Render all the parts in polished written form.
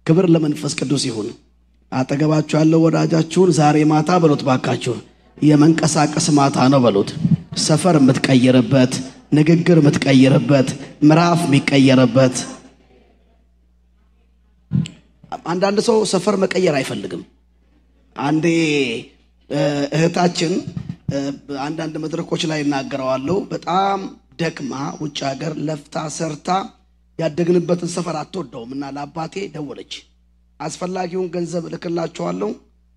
ክብር ለመንፈስ ቅዱስ ይሁን አጠገባችሁ ያለው ወዳጃችሁን ዛሬ ማታ በሉት ባካችሁ የመንቀሳቀስ ማታ ነው በሉት ሰፈር የምትቀየርበት ንግግር የምትቀየርበት ምዕራፍ የሚቀየርበት አንዳንድ ሰው ሰፈር መቀየር አይፈልግም አንዴ እህታችን አንዳንድ መድረኮች ላይ እናገራዋለሁ በጣም ደክማ ውጭ ሀገር ለፍታ ሰርታ ያደግንበትን ሰፈር አትወደውምና ለአባቴ ደወለች አስፈላጊውን ገንዘብ ልክላቸዋለሁ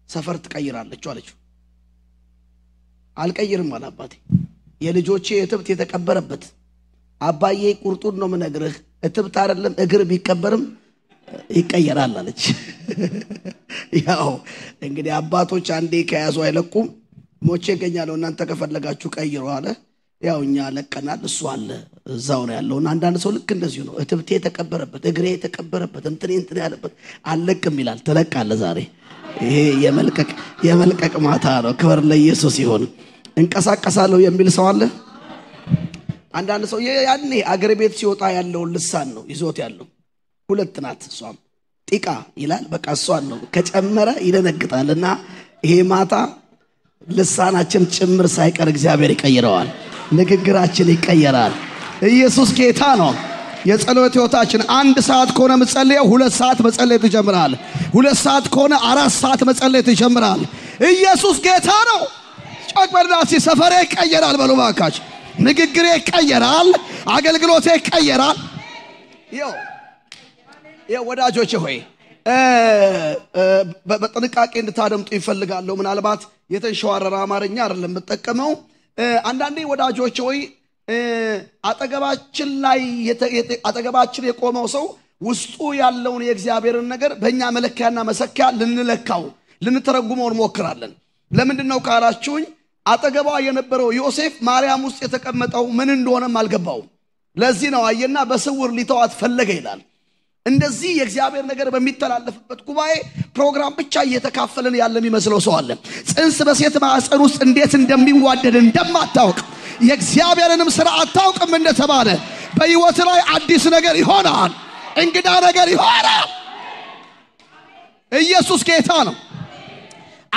ሰፈር ትቀይራለች አለችው አልቀይርም አለ አባቴ የልጆቼ እትብት የተቀበረበት አባዬ ቁርጡን ነው ምነግርህ እትብት አይደለም እግር ቢቀበርም ይቀየራል አለች ያው እንግዲህ አባቶች አንዴ ከያዙ አይለቁም ሞቼ ገኛለው እናንተ ከፈለጋችሁ ቀይሩ አለ ያው እኛ ለቀናል እሱ አለ እዛው ነው ያለው አንዳንድ ሰው ልክ እንደዚህ ነው እትብቴ የተቀበረበት እግሬ የተቀበረበት እንትን ያለበት አለቅም ይላል ተለቃለ ዛሬ ይሄ የመልቀቅ ማታ ነው ክብር ለኢየሱስ ይሁን እንቀሳቀሳለሁ የሚል ሰው አለ አንዳንድ ሰው ያኔ አገር ቤት ሲወጣ ያለው ልሳን ነው ይዞት ያለው ሁለት ናት እሷም ጢቃ ይላል በቃ እሷን ነው ከጨመረ ይደነግጣልና ይሄ ማታ ልሳናችን ጭምር ሳይቀር እግዚአብሔር ይቀይረዋል ንግግራችን ይቀየራል ኢየሱስ ጌታ ነው የጸሎት ህይወታችን 1 ሰዓት ከሆነ መጸለየው 2 ሰዓት መጸለይ ትጀምራል 2 ሰዓት ከሆነ 4 ሰዓት መጸለይ ትጀምራል ኢየሱስ ጌታ ነው ጮክበርዳሲ ሰፈሬ ይቀየራል በሉ ባካች ንግግሬ ይቀየራል አገልግሎቴ ይቀየራል ወዳጆቼ ሆይ በጥንቃቄ እንድታደምጡ ይፈልጋለሁ ምናልባት የተንሸዋረረ አማርኛ አይደለም መጠቀመው አንዳንዴ ወዳጆቼ ሆይ አጠገባችን የቆመው ሰው ውስጡ ያለውን የእግዚአብሔርን ነገር በእኛ መለኪያና መሰኪያ ልንለካው ልንተረጉመው እንሞክራለን ለምንድነው ካላችሁኝ አጠገባ የነበረው ዮሴፍ ማርያም ውስጥ የተቀመጠው ምን እንደሆነም አልገባው ለዚህ ነው አየና በስውር ሊተዋት ፈለገ ይላል እንደዚህ የእግዚአብሔር ነገር በሚተላለፍበት ጉባኤ ፕሮግራም ብቻ እየተካፈለን ያለም ይመስለው ሰው አለ ጽንስ በሴት ማህፀን ውስጥ እንዴት እንደሚዋደድ እንደማታውቅ የእግዚአብሔርንም ሥራ አታውቅም እንደተባለ በህይወት ላይ አዲስ ነገር ይሆናል እንግዳ ነገር ይሆናል ኢየሱስ ጌታ ነው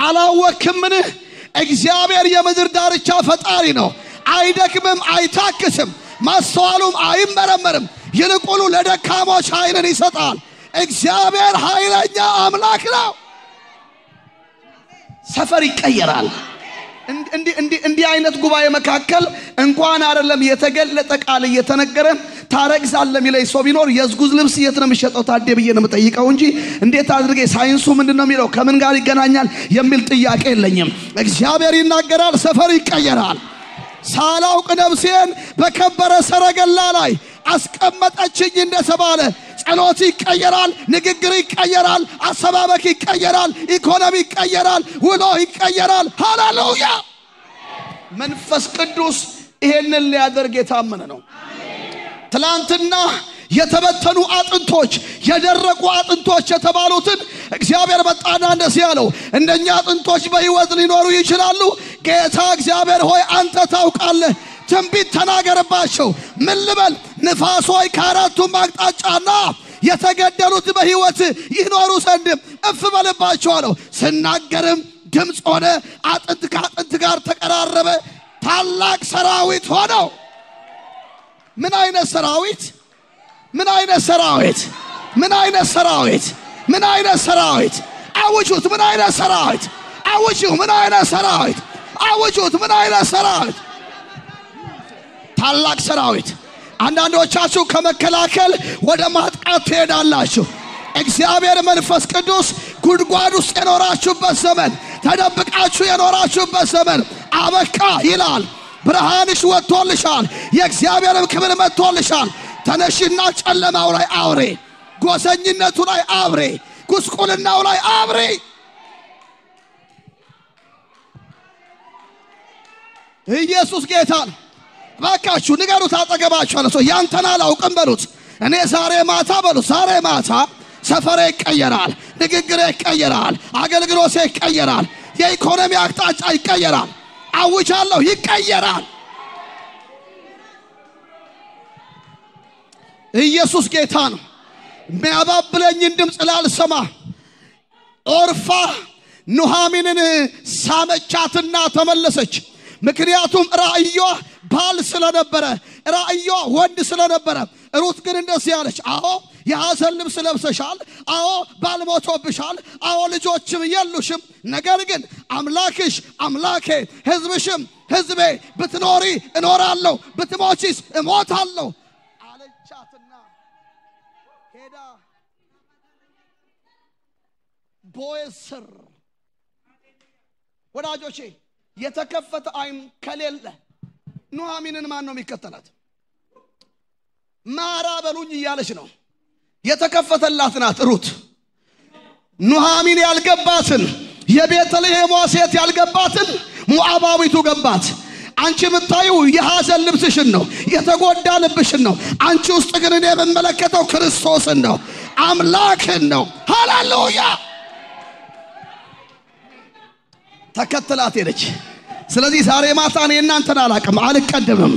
አላወክምን እግዚአብሔር የምድር ዳርቻ ፈጣሪ ነው አይደክምም አይታክስም ማስተዋሉም አይመረመርም ይልቁኑ ለደካሞች ኃይልን ይሰጣል እግዚአብሔር ኃይለኛ አምላክ ነው ሰፈር ይቀየራል እንዲህ አይነት ጉባኤ መካከል እንኳን አይደለም የተገለጠ ቃል እየተነገረ ታረግዛለ ሚለይ ሰው ቢኖር የዝጉዝ ልብስ የት ነው የሚሸጠው ታዴ ብዬ ነው መጠይቀው እንጂ እንዴት አድርጌ ሳይንሱ ምንድነው የሚለው ከምን ጋር ይገናኛል የሚል ጥያቄ የለኝም እግዚአብሔር ይናገራል ሰፈር ይቀየራል ሳላውቅ ነፍሴን በከበረ ሰረገላ ላይ አስቀመጠችኝ እንደተባለ ጸሎት ይቀየራል ንግግር ይቀየራል አሰባበክ ይቀየራል ኢኮኖሚ ይቀየራል ውሎ ይቀየራል ሃሌሉያ መንፈስ ቅዱስ ይሄንን ሊያደርግ የታመነ ነው ትላንትና የተበተኑ አጥንቶች የደረቁ አጥንቶች የተባሉትን እግዚአብሔር በጣና እንደዚህ ያለው እንደኛ አጥንቶች በህይወት ሊኖሩ ይችላሉ ጌታ እግዚአብሔር ሆይ አንተ ታውቃለህ ትንቢት ተናገርባቸው ምን ልበል ንፋሶይ ካራቱም አቅጣጫና የተገደሉት በህይወት ይኖሩ ዘንድ እፍ በልባቸው አለው ስናገርም ድምጽ ሆነ አጥንት ከአጥንት ጋር ተቀራረበ ታላቅ ሰራዊት ሆነው ምን አይነት ሰራዊት ምን አይነት ሰራዊት ምን አይነት ሰራዊት ምን አይነት ሰራዊት አውጁት ምን አይነት ሰራዊት አውጁ ምን አይነት ሰራዊት አውጁት ምን አይነት ሰራዊት ታላቅ ሰራዊት አንዳንዶቻችሁ ከመከላከል ወደ ማጥቃት ትሄዳላችሁ እግዚአብሔር መንፈስ ቅዱስ ጉድጓድ ውስጥ የኖራችሁበት ዘመን ተደብቃችሁ የኖራችሁበት ዘመን አበቃ ይላል ብርሃንሽ ወጥቶልሻል የእግዚአብሔርም ክብር መጥቶልሻል ተነሽና ጨለማው ላይ አውሬ ጎሰኝነቱ ላይ አብሬ ጉስቁልናው ላይ አብሬ ኢየሱስ ጌታ ባካችሁ ንገሩት አጠገባችሁ አለ ሰው ያንተና አላውቅም በሉት እኔ ዛሬ ማታ በሉት ዛሬ ማታ ሰፈሬ ይቀየራል ንግግሬ ይቀየራል አገልግሎቴ ይቀየራል የኢኮኖሚ አቅጣጫ ይቀየራል አውጃለሁ ይቀየራል ኢየሱስ ጌታ ነው የሚያባብለኝን ድምፅ ላልሰማ ኦርፋ ኑሃሚንን ሳመቻትና ተመለሰች። ምክንያቱም ራእዩ ባል ስለነበረ ራእዩ ወንድ ስለነበረ። ሩት ግን እንደዚህ ያለች አዎ የሐዘን ልብስ ለብሰሻል፣ አዎ ባል ሞቶብሻል፣ አዎ ልጆችም የሉሽም፣ ነገር ግን አምላክሽ አምላኬ ሕዝብሽም ሕዝቤ፣ ብትኖሪ እኖራለሁ ብትሞቺስ እሞታለሁ አለቻትና ሄዳ ቦዔዝ ስር ወዳጆቼ የተከፈተ አይን ከሌለ ኑሃሚንን ማን ነው የሚከተላት? ማራ በሉኝ እያለች ነው። የተከፈተላት ናት ሩት። ኑሃሚን ያልገባትን የቤተልሔም ሴት ያልገባትን ሞዓባዊቱ ገባት። አንቺ የምታዩ የሐዘን ልብስሽን ነው፣ የተጎዳ ልብሽን ነው። አንቺ ውስጥ ግን እኔ የምመለከተው ክርስቶስን ነው፣ አምላክን ነው። ሃሌሉያ! ተከተላት ሄደች። ስለዚህ ዛሬ ማታ እኔ እናንተን አላቅም፣ አልቀደምም።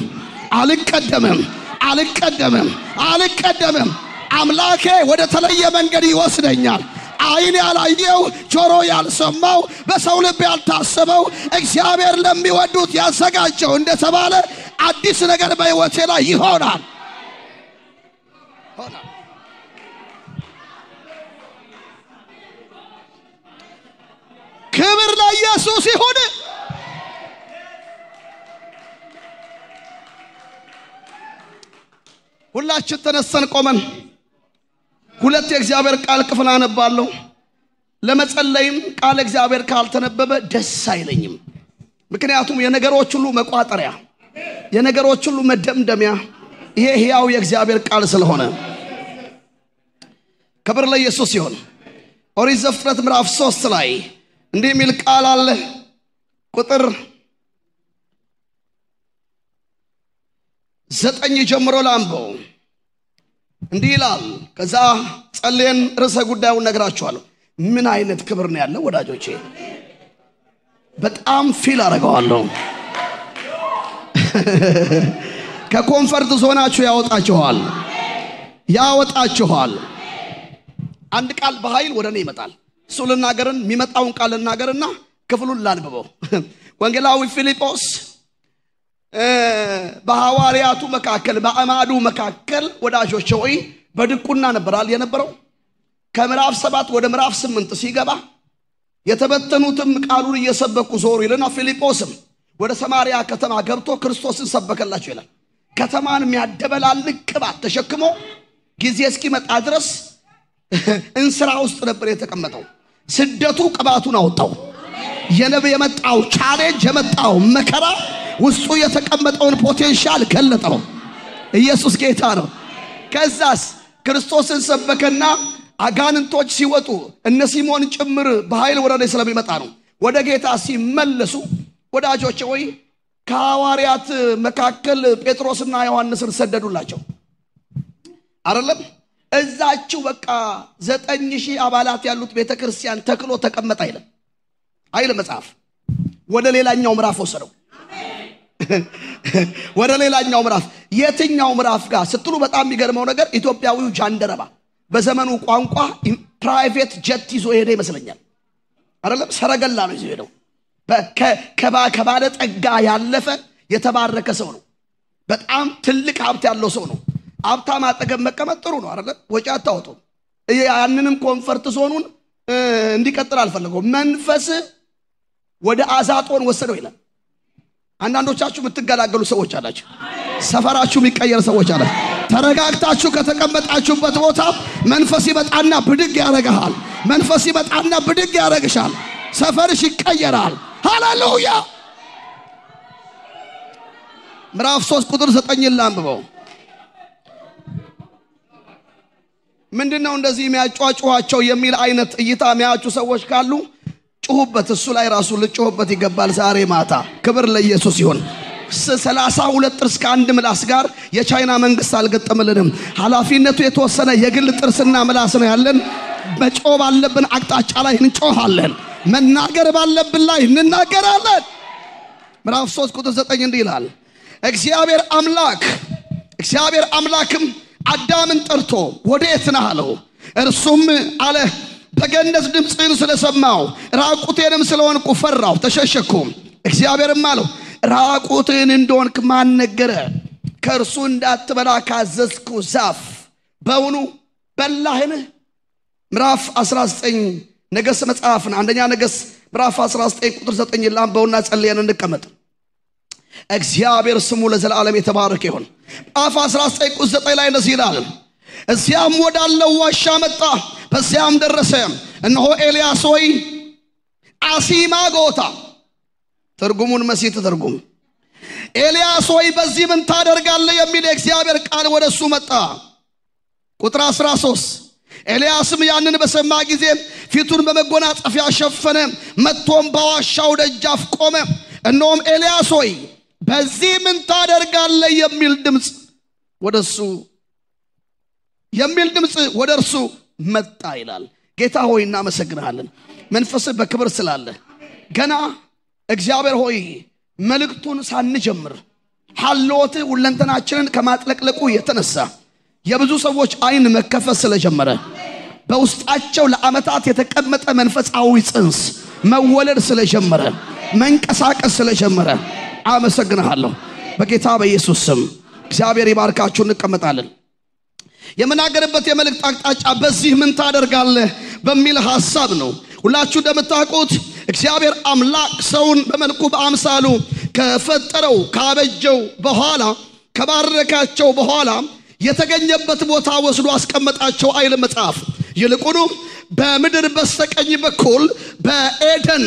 አምላኬ ወደ ተለየ መንገድ ይወስደኛል። አይን ያላየው ጆሮ ያልሰማው በሰው ልብ ያልታሰበው እግዚአብሔር ለሚወዱት ያዘጋጀው እንደተባለ አዲስ ነገር በሕይወቴ ላይ ይሆናል። ክብር ለኢየሱስ ይሁን። ሁላችን ተነስተን ቆመን ሁለት የእግዚአብሔር ቃል ክፍል አነባለሁ። ለመጸለይም ቃል እግዚአብሔር ካልተነበበ ደስ አይለኝም። ምክንያቱም የነገሮች ሁሉ መቋጠሪያ፣ የነገሮች ሁሉ መደምደሚያ ይሄ ሕያው የእግዚአብሔር ቃል ስለሆነ ክብር ለኢየሱስ ይሁን። ኦሪት ዘፍጥረት ምዕራፍ 3 ላይ እንዲህ የሚል ቃል አለ። ቁጥር 9 ጀምሮ ላንብበው። እንዲህ ይላል። ከዛ ጸልየን ርዕሰ ጉዳዩን ነግራችኋለሁ። ምን አይነት ክብር ነው ያለው ወዳጆቼ! በጣም ፊል አደርገዋለሁ። ከኮንፈርት ዞናችሁ ያወጣችኋል። አንድ ቃል በኃይል ወደኔ ይመጣል። እሱ ልናገርን የሚመጣውን ቃል ልናገርና ክፍሉን ላንብበው። ወንጌላዊ ፊልጶስ በሐዋርያቱ መካከል በአማዱ መካከል ወዳጆቼ ሆይ በድቁና ነበራል የነበረው። ከምዕራፍ 7 ወደ ምዕራፍ 8 ሲገባ የተበተኑትም ቃሉን እየሰበኩ ዞሩ ይልና ፊልጶስም ወደ ሰማርያ ከተማ ገብቶ ክርስቶስን ሰበከላቸው ይላል። ከተማን የሚያደበላልቅ ቅባት ተሸክሞ ጊዜ እስኪመጣ ድረስ እንስራ ውስጥ ነበር የተቀመጠው። ስደቱ ቅባቱን አወጣው። የመጣው ቻሌንጅ የመጣው መከራ ውስጡ የተቀመጠውን ፖቴንሻል ገለጠው። ኢየሱስ ጌታ ነው። ከዛስ ክርስቶስን ሰበከና አጋንንቶች ሲወጡ እነ ሲሞን ጭምር በኃይል ወደ ላይ ስለሚመጣ ነው ወደ ጌታ ሲመለሱ ወዳጆቼ ሆይ ከሐዋርያት መካከል ጴጥሮስና ዮሐንስን ሰደዱላቸው አይደለም። እዛችሁ በቃ 9000 አባላት ያሉት ቤተክርስቲያን ተክሎ ተቀመጠ አይደል መጽሐፍ። ወደ ሌላኛው ምዕራፍ ወሰደው። ወደ ሌላኛው ምዕራፍ የትኛው ምዕራፍ ጋር ስትሉ በጣም የሚገርመው ነገር ኢትዮጵያዊው ጃንደረባ በዘመኑ ቋንቋ ፕራይቬት ጀት ይዞ ሄደ ይመስለኛል አይደለም። ሰረገላ ነው ይዞ ሄደው። ከባለ ጠጋ ያለፈ የተባረከ ሰው ነው። በጣም ትልቅ ሀብት ያለው ሰው ነው። ሀብታም አጠገብ መቀመጥ ጥሩ ነው አይደል? ወጪ አታወጡ። ያንንም ኮንፈርት ዞኑን እንዲቀጥል አልፈለገው። መንፈስ ወደ አዛጦን ወሰደው ይላል። አንዳንዶቻችሁ የምትገላገሉ ሰዎች አላችሁ። ሰፈራችሁ የሚቀየር ሰዎች አላችሁ። ተረጋግታችሁ ከተቀመጣችሁበት ቦታ መንፈስ ይመጣና ብድግ ያረጋል። መንፈስ ይመጣና ብድግ ያረግሻል። ሰፈርሽ ይቀየራል። ሃሌሉያ! ምዕራፍ 3 ቁጥር 9 ላንብበው። ምንድነው እንደዚህ የሚያጫጫዋቸው የሚል አይነት እይታ የሚያጩ ሰዎች ካሉ ጩሁበት። እሱ ላይ ራሱ ልጮህበት ይገባል ዛሬ ማታ። ክብር ለኢየሱስ ይሁን። 32 ጥርስ ከአንድ ምላስ ጋር የቻይና መንግስት አልገጠመልንም። ኃላፊነቱ የተወሰነ የግል ጥርስና ምላስ ነው ያለን። መጮህ ባለብን አቅጣጫ ላይ እንጮሃለን። መናገር ባለብን ላይ እንናገራለን። ምዕራፍ 3 ቁጥር 9 እንዲህ ይላል። እግዚአብሔር አምላክም አዳምን ጠርቶ ወዴት ነህ አለው እርሱም አለ በገነት ድምጽን ስለሰማው ራቁቴንም ስለሆንኩ ፈራው ተሸሸኩ እግዚአብሔርም አለው ራቁትን እንደሆንክ ማን ነገረ ከእርሱ እንዳትበላ ካዘዝኩ ዛፍ በውኑ በላህን ምዕራፍ 19 ነገሥት መጽሐፍ አንደኛ ነገሥት ምዕራፍ 19 ቁጥር 9 ላምበውና ጸልየን እንቀመጥ እግዚአብሔር ስሙ ለዘላለም የተባረከ ይሁን ምዕራፍ 19 ቁጥር 9 ላይ እንደዚህ ይላል እዚያም ወዳለው ዋሻ መጣ በዚያም ደረሰ እነሆ ኤልያስ ሆይ አሲማጎታ ትርጉሙን መሲት ትርጉም ኤልያስ ሆይ በዚህ ምን ታደርጋለህ የሚል የእግዚአብሔር ቃል ወደሱ መጣ ቁጥር 13 ኤልያስም ያንን በሰማ ጊዜ ፊቱን በመጎናጸፊያ ሸፈነ መጥቶም በዋሻው ደጃፍ ቆመ እነሆም ኤልያስ ሆይ በዚህ ምን ታደርጋለህ የሚል ድምጽ ወደ እርሱ መጣ ይላል ጌታ ሆይ እናመሰግናለን መንፈስ በክብር ስላለ ገና እግዚአብሔር ሆይ መልእክቱን ሳንጀምር ሐልዎት ሁለንተናችንን ከማጥለቅለቁ የተነሳ የብዙ ሰዎች አይን መከፈት ስለጀመረ በውስጣቸው ለዓመታት የተቀመጠ መንፈሳዊ ጽንስ መወለድ ስለጀመረ መንቀሳቀስ ስለጀመረ አመሰግናለሁ በጌታ በኢየሱስ ስም እግዚአብሔር ይባርካችሁ እንቀመጣለን የመናገርበት የመልእክት አቅጣጫ በዚህ ምን ታደርጋለህ በሚል ሐሳብ ነው ሁላችሁ እንደምታውቁት እግዚአብሔር አምላክ ሰውን በመልኩ በአምሳሉ ከፈጠረው ካበጀው በኋላ ከባረካቸው በኋላ የተገኘበት ቦታ ወስዶ አስቀመጣቸው አይል መጽሐፍ ይልቁኑ በምድር በስተቀኝ በኩል በኤደን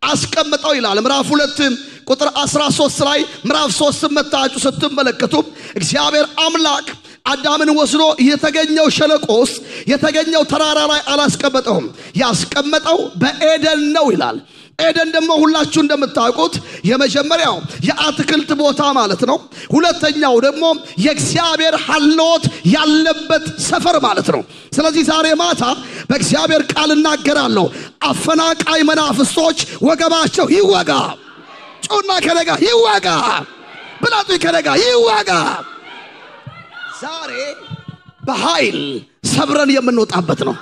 አስቀመጠው ይላል ምዕራፍ 2 ቁጥር 13 ላይ ምዕራፍ 3 መታችሁ ስትመለከቱ እግዚአብሔር አምላክ አዳምን ወስዶ የተገኘው ሸለቆስ የተገኘው ተራራ ላይ አላስቀመጠውም ያስቀመጠው በኤደን ነው ይላል ኤደን ደግሞ ሁላችሁ እንደምታውቁት የመጀመሪያው የአትክልት ቦታ ማለት ነው ሁለተኛው ደግሞ የእግዚአብሔር ሐልዎት ያለበት ሰፈር ማለት ነው ስለዚህ ዛሬ ማታ በእግዚአብሔር ቃል እናገራለሁ አፈናቃይ መናፍስቶች ወገባቸው ይወጋ ጮና ከነጋ ይወጋ ብላቱ ከነጋ ይወጋ ዛሬ በኃይል ሰብረን የምንወጣበት ነው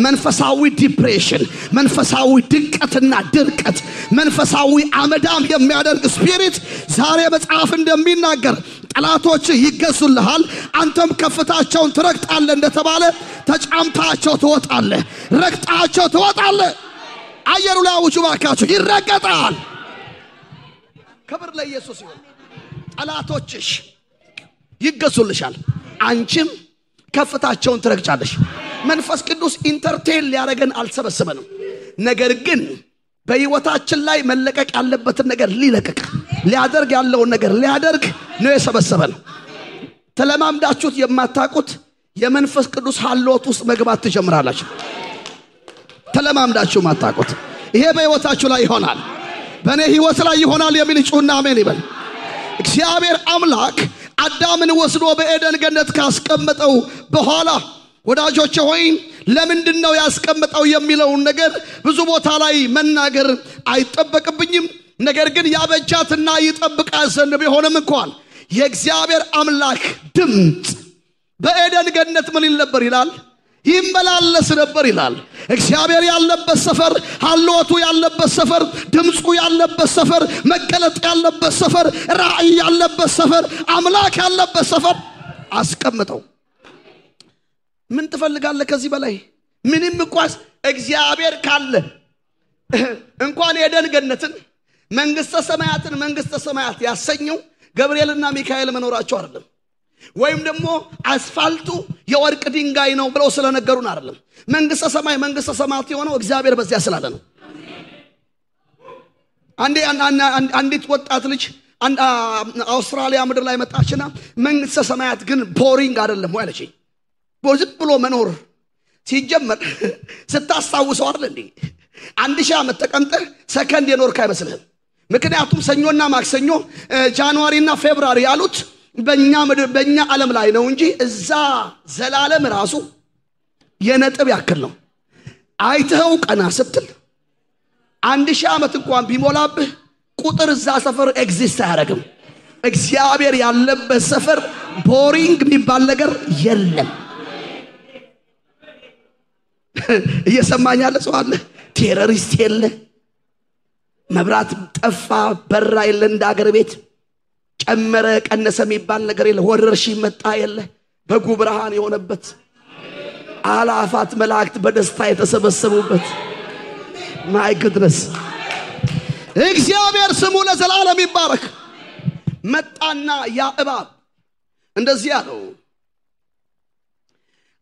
መንፈሳዊ ዲፕሬሽን መንፈሳዊ ድቀትና ድርቀት መንፈሳዊ አመዳም የሚያደርግ ስፒሪት ዛሬ መጽሐፍ እንደሚናገር ጠላቶች ይገዙልሃል አንተም ከፍታቸውን ትረግጣለህ እንደተባለ ተጫምታቸው ትወጣለህ ረግጣቸው ትወጣለህ አየሩ ላይ አውጁ ባካችሁ ይረገጣል ክብር ለኢየሱስ ይሁን ጠላቶችሽ ይገዙልሻል አንቺም ከፍታቸውን ትረግጫለሽ መንፈስ ቅዱስ ኢንተርቴል ሊያረገን አልሰበሰበንም ነገር ግን በህይወታችን ላይ መለቀቅ ያለበትን ነገር ሊለቀቅ ሊያደርግ ያለውን ነገር ሊያደርግ ነው የሰበሰበን ተለማምዳችሁት የማታውቁት የመንፈስ ቅዱስ ሐልዎት ውስጥ መግባት ትጀምራላችሁ ተለማምዳችሁ ማታውቁት ይሄ በህይወታችሁ ላይ ይሆናል በእኔ ህይወት ላይ ይሆናል የሚል ጩና አሜን ይበል እግዚአብሔር አምላክ አዳምን ወስዶ በኤደን ገነት ካስቀመጠው በኋላ ወዳጆቼ ሆይ ለምንድነው ያስቀመጠው የሚለው ነገር ብዙ ቦታ ላይ መናገር አይጠበቅብኝም ነገር ግን ያበጃትና ይጠብቃል ዘንድ ቢሆንም እንኳን የእግዚአብሔር አምላክ ድምጽ በኤደን ገነት ምን ይል ነበር ይላል ይመላለስ ነበር ይላል እግዚአብሔር ያለበት ሰፈር ሐልዎቱ ያለበት ሰፈር ድምጹ ያለበት ሰፈር መገለጥ ያለበት ሰፈር ራእይ ያለበት ሰፈር አምላክ ያለበት ሰፈር አስቀምጠው ምን ትፈልጋለህ ከዚህ በላይ ምንም እንኳን እግዚአብሔር ካለ እንኳን የኤደን ገነትን መንግስተ ሰማያት ያሰኘው ገብርኤልና ሚካኤል መኖራቸው አይደለም ወይም ደግሞ አስፋልቱ የወርቅ ድንጋይ ነው ብለው ስለነገሩን አይደለም መንግስተ ሰማያት የሆነው እግዚአብሔር በዚያ ስላለ ነው አንዲት ወጣት ልጅ አውስትራሊያ ምድር ላይ መጣችና መንግስተ ሰማያት ግን ቦሪንግ አይደለም ወይ አለች ቦዝብ ብሎ መኖር ሲጀመር ስታስታውሰው አይደል እንዴ 1000 ዓመት ተቀምጠህ ሰከንድ የኖርክ አይመስልህም ምክንያቱም ሰኞና ማክሰኞ ጃንዋሪና ፌብሩዋሪ ያሉት በእኛ ዓለም ላይ ነው እንጂ እዛ ዘላለም ራሱ የነጥብ ያክል ነው አይተው ቀና ስትል 1000 ዓመት እንኳን ቢሞላብህ ቁጥር እዛ ሰፈር ኤግዚስት አያደርግም እግዚአብሔር ያለበት ሰፈር ቦሪንግ የሚባል ነገር የለም። እየሰማኝ ያለ ሰው አለ? ቴሮሪስት የለ፣ መብራት ጠፋ በራ የለ፣ እንደ አገር ቤት ጨመረ ቀነሰ የሚባል ነገር የለ፣ ወረርሽኝ መጣ የለ። በጉ ብርሃን የሆነበት አላፋት መላእክት በደስታ የተሰበሰቡበት ማይ ጉድነስ እግዚአብሔር ስሙ ለዘላለም ይባረክ። መጣና ያ እባብ እንደዚህ ያለው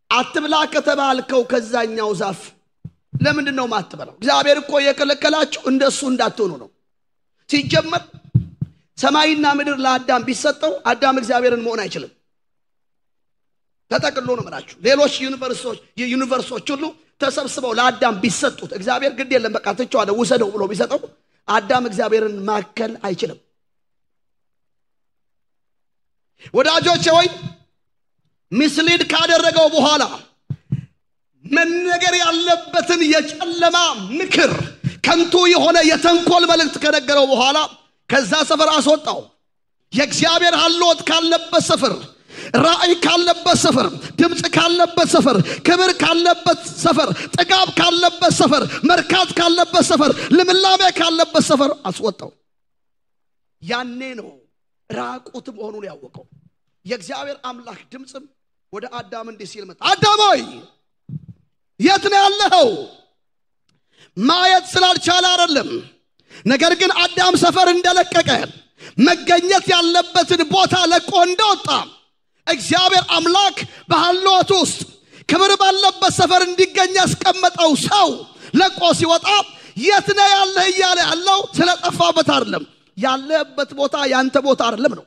አትብላ ከተባልከው ከዛኛው ዛፍ ለምንድነው ማትበላው? እግዚአብሔር እኮ የከለከላችሁ እንደሱ እንዳትሆኑ ነው። ሲጀመር ሰማይና ምድር ለአዳም ቢሰጠው አዳም እግዚአብሔርን መሆን አይችልም። ተጠቅሎ ነው ማለት ሌሎች ዩኒቨርሶች ሁሉ ተሰብስበው ለአዳም ቢሰጡት እግዚአብሔር ግድ የለም በቃ ተጫዋለው ወሰደው ብሎ ቢሰጠው አዳም እግዚአብሔርን ማከል አይችልም። ወዳጆቼ ወይ ምስሊድ ካደረገው በኋላ መነገር ያለበትን የጨለማ ምክር ከንቱ የሆነ የተንኮል መልእክት ከነገረው በኋላ ከዛ ሰፈር አስወጣው። የእግዚአብሔር ሐልዎት ካለበት ሰፈር፣ ራእይ ካለበት ሰፈር፣ ድምጽ ካለበት ሰፈር፣ ክብር ካለበት ሰፈር፣ ጥጋብ ካለበት ሰፈር፣ መርካት ካለበት ሰፈር፣ ልምላሜ ካለበት ሰፈር አስወጣው። ያኔ ነው ራቁት መሆኑን ያወቀው። የእግዚአብሔር አምላክ ድምጽም ወደ አዳም እንዲህ ሲል መጣ። አዳም ሆይ የት ነው ያለኸው? ማየት ስላልቻለ አይደለም፣ ነገር ግን አዳም ሰፈር እንደለቀቀ መገኘት ያለበትን ቦታ ለቆ እንደወጣ እግዚአብሔር አምላክ በሐልዎት ውስጥ ክብር ባለበት ሰፈር እንዲገኝ ያስቀመጠው ሰው ለቆ ሲወጣ የት ነው ያለህ እያለ ያለው ስለጠፋበት አይደለም። ያለበት ቦታ ያንተ ቦታ አይደለም ነው።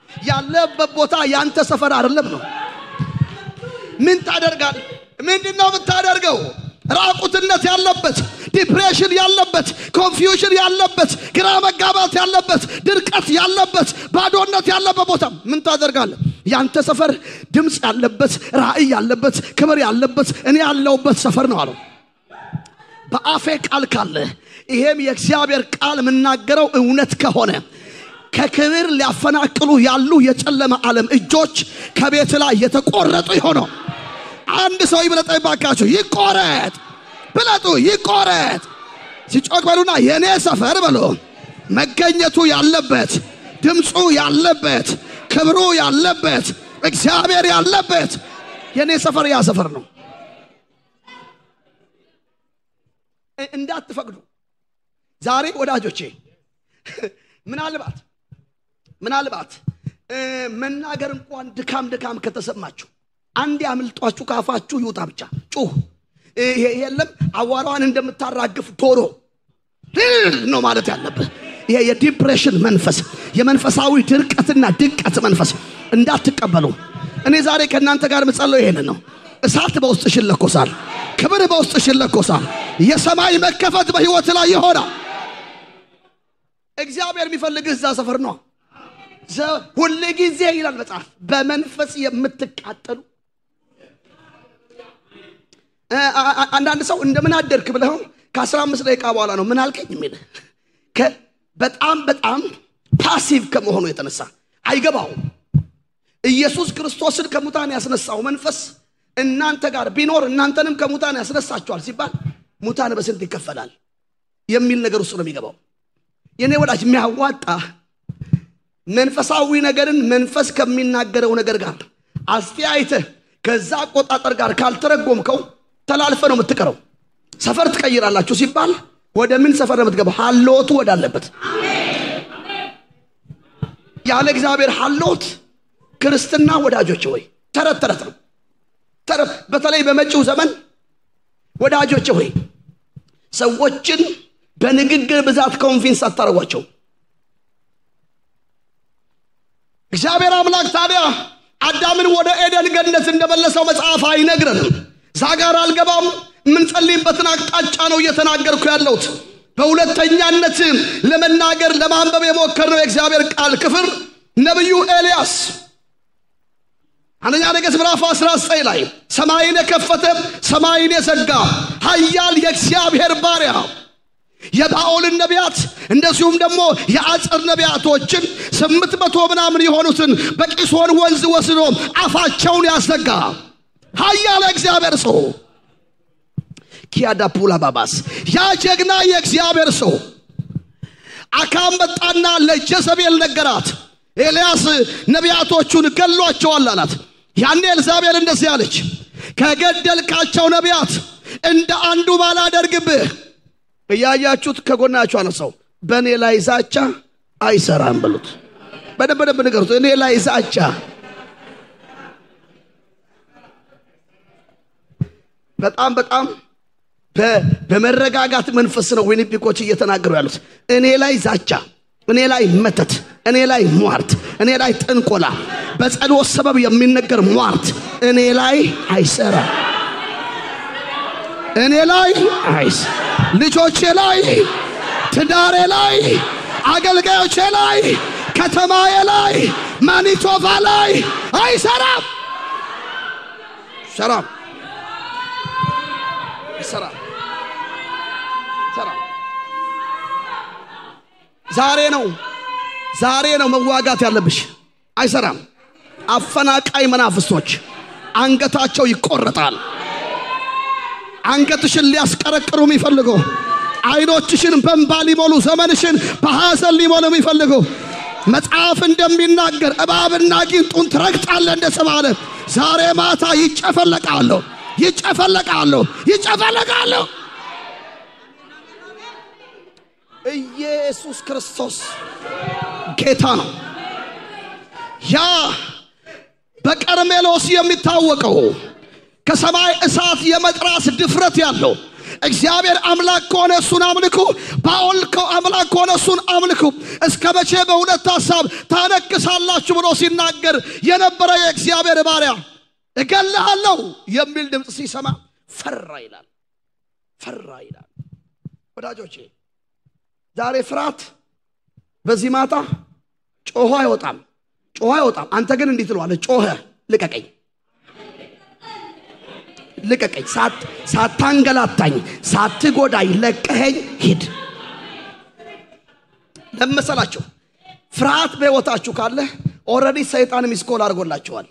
ያለበት ቦታ ያንተ ሰፈር አይደለም ነው። ምን ታደርጋለህ? ምንድነው የምታደርገው? ራቁትነት ያለበት፣ ዲፕሬሽን ያለበት፣ ኮንፊውዥን ያለበት፣ ግራ መጋባት ያለበት፣ ድርቀት ያለበት፣ ባዶነት ያለበት ቦታ ምን ታደርጋለህ? ያንተ ሰፈር ድምጽ ያለበት፣ ራእይ ያለበት፣ ክብር ያለበት እኔ ያለውበት ሰፈር ነው አለው። በአፌ ቃል ካለ ይሄም የእግዚአብሔር ቃል ምናገረው እውነት ከሆነ ከክብር ሊያፈናቅሉ ያሉ የጨለማ ዓለም እጆች ከቤት ላይ የተቆረጡ ይሆነው። አንድ ሰው ይብለጠኝ ባካችሁ፣ ይቆረጥ ብለጡ፣ ይቆረጥ ሲጮክ በሉና የኔ ሰፈር በሉ መገኘቱ ያለበት፣ ድምጹ ያለበት፣ ክብሩ ያለበት፣ እግዚአብሔር ያለበት የኔ ሰፈር ያ ሰፈር ነው። እንዳትፈቅዱ ዛሬ ወዳጆቼ ምናልባት መናገር እንኳን ድካም ከተሰማችሁ አንድ ያምልጧችሁ ካፋችሁ ይውጣ ብቻ ጩህ። የለም አዋራዋን እንደምታራግፍ ዶሮ ነው ማለት ያለበት። ይሄ የዲፕሬሽን መንፈስ፣ የመንፈሳዊ ድርቀትና ድቀት መንፈስ እንዳትቀበሉ እኔ ዛሬ ከናንተ ጋር መጸለይ ይሄንን ነው። እሳት በውስጥሽ ይለኮሳል፣ ክብር በውስጥሽ ይለኮሳል፣ የሰማይ መከፈት በህይወት ላይ ይሆናል። እግዚአብሔር የሚፈልግህ እዛ ሰፈር ነው። ሁሉ ጊዜ ይላል መጽሐፍ በመንፈስ የምትቃጠሉ። አንዳንድ ሰው እንደምን አደርክ ብለው ከ15 ደቂቃ በኋላ ነው ምን አልከኝ የሚል በጣም ፓሲቭ ከመሆኑ የተነሳ አይገባው። ኢየሱስ ክርስቶስን ከሙታን ያስነሳው መንፈስ እናንተ ጋር ቢኖር እናንተንም ከሙታን ያስነሳቸዋል ሲባል ሙታን በስንት ይከፈላል የሚል ነገር ውስጥ ነው የሚገባው። የኔ ወዳጅ የሚያዋጣ መንፈሳዊ ነገርን መንፈስ ከሚናገረው ነገር ጋር አስተያይተህ ከዛ ቆጣጠር ጋር ካልተረጎምከው ተላልፈ ነው የምትቀረው። ሰፈር ትቀይራላችሁ ሲባል ወደ ምን ሰፈር ነው የምትገባው? ሐልዎቱ ወዳለበት። ያለ እግዚአብሔር ሐልዎት ክርስትና ወዳጆች ወይ ተረት ነው። በተለይ በመጪው ዘመን ወዳጆች ወይ ሰዎችን በንግግር ብዛት ኮንቪንስ አታረጓቸው። እግዚአብሔር አምላክ ታዲያ አዳምን ወደ ኤደን ገነት እንደመለሰው መጽሐፍ አይነግረንም። ዛጋር አልገባም። ምን ጸልይበትን አቅጣጫ ነው እየተናገርኩ ያለሁት። በሁለተኛነት ለመናገር ለማንበብ የሞከርነው የእግዚአብሔር ቃል ክፍል ነብዩ ኤልያስ አንደኛ ነገሥት ምዕራፍ 19 ላይ ሰማይን የከፈተ ሰማይን የዘጋ ኃያል የእግዚአብሔር ባሪያ የባኦል ነቢያት እንደዚሁም ደግሞ የአጸር ነቢያቶችን 800 ምናምን የሆኑትን በቂሶን ወንዝ ወስዶ አፋቸውን ያዘጋ ኃያል እግዚአብሔር ሰው ኪያዳ ፑላ ባባስ ያ ጀግና የእግዚአብሔር ሰው አካም መጣና ለጀዘቤል ነገራት ኤልያስ ነቢያቶቹን ገሏቸዋል አላት ያኔ ኤልዛቤል እንደዚህ አለች ከገደልካቸው ነቢያት እንደ አንዱ ባላደርግብህ እያያችሁት ከጎናችሁ አነሳው በኔ ላይ ዛቻ አይሰራም ብሉት በደንብ ንገሩት እኔ ላይ ዛቻ በጣም በመረጋጋት መንፈስ ነው ዊኒፒኮች እየተናገሩ ያሉት እኔ ላይ ዛቻ እኔ ላይ መተት እኔ ላይ ሟርት እኔ ላይ ጥንቆላ በጸሎት ሰበብ የሚነገር ሟርት እኔ ላይ አይሰራ እኔ ላይ አይስ ልጆቼ ላይ ትዳሬ ላይ አገልጋዮቼ ላይ ከተማዬ ላይ ማኒቶባ ላይ አይሰራም ሰራም ዛሬ ነው መዋጋት ያለብሽ አይሰራም አፈናቃይ መናፍስቶች አንገታቸው ይቆረጣል አንገትሽን ሊያስቀረቅሩ የሚፈልጉ አይኖችሽን በእንባ ሊሞሉ ዘመንሽን በሐዘን ሊሞሉ የሚፈልጉ መጽሐፍ እንደሚናገር እባብና ጊንጡን ትረግጣለህ እንደተባለ ዛሬ ማታ ይጨፈለቃሉ ኢየሱስ ክርስቶስ ጌታ ነው ያ በቀርሜሎስ የሚታወቀው ከሰማይ እሳት የመጥራስ ድፍረት ያለው እግዚአብሔር አምላክ ከሆነ እሱን አምልኩ ባኦል አምላክ ከሆነ እሱን አምልኩ እስከመቼ በሁለት ሐሳብ ታነክሳላችሁ ብሎ ሲናገር የነበረ የእግዚአብሔር ባሪያ እገልሃለሁ የሚል ድምጽ ሲሰማ ፈራ ይላል ወዳጆቼ ዛሬ ፍርሃት በዚህ ማታ ጮሆ አይወጣም አንተ ግን እንዴት ትለዋለህ ጮኸ ልቀቀኝ ሳታንገላታኝ ሳትጎዳኝ ለቀኸኝ ሂድ ለምሳላችሁ ፍርሃት በህይወታችሁ ካለ ኦሬዲ ሰይጣን ሚስኮል አድርጎላችኋል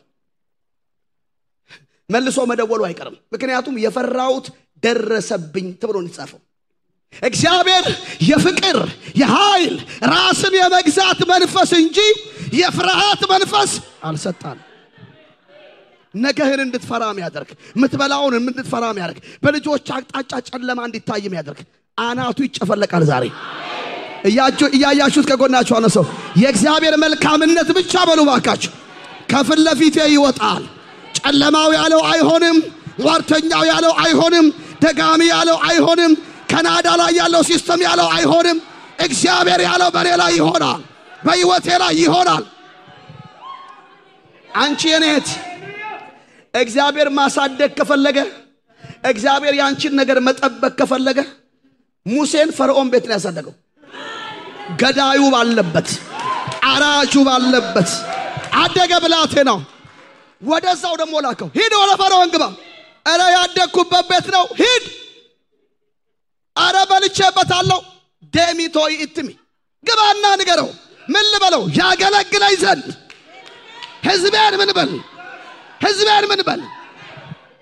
መልሶ መደወሉ አይቀርም ምክንያቱም የፈራውት ደረሰብኝ ተብሎ እንጻፈው እግዚአብሔር የፍቅር የኃይል ራስን የመግዛት መንፈስ እንጂ የፍርሃት መንፈስ አልሰጣን ነገህን እንድትፈራ የሚያደርግ ምትበላውን እንድትፈራ የሚያደርግ በልጆች አቅጣጫ ጨለማ እንዲታይ የሚያደርግ አናቱ ይጨፈለቃል ዛሬ እያያችሁት ከጎናችሁ አነሰው የእግዚአብሔር መልካምነት ብቻ በሉ ባካችሁ ከፊት ለፊቴ ይወጣል ጨለማው ያለው አይሆንም ሟርተኛው ያለው አይሆንም ደጋሚ ያለው አይሆንም ካናዳ ላይ ያለው ሲስተም ያለው አይሆንም እግዚአብሔር ያለው በኔ ላይ ይሆናል በህይወቴ ላይ ይሆናል አንቺ የኔት እግዚአብሔር ማሳደግ ከፈለገ እግዚአብሔር ያንቺን ነገር መጠበቅ ከፈለገ ሙሴን ፈርዖን ቤት ላይ ያሳደገው ገዳዩ ባለበት አራጁ ባለበት አደገ ብላቴናው ወደዛው ደሞ ላከው ሂድ ወደ ፈርዖን ግባ አረ ያደግኩበት ቤት ነው ሂድ አረ በልቼበታለሁ ደሚቶይ ኢትሚ ግባና ንገረው ምን ልበለው ያገለግለኝ ዘንድ ህዝቤን ምን በል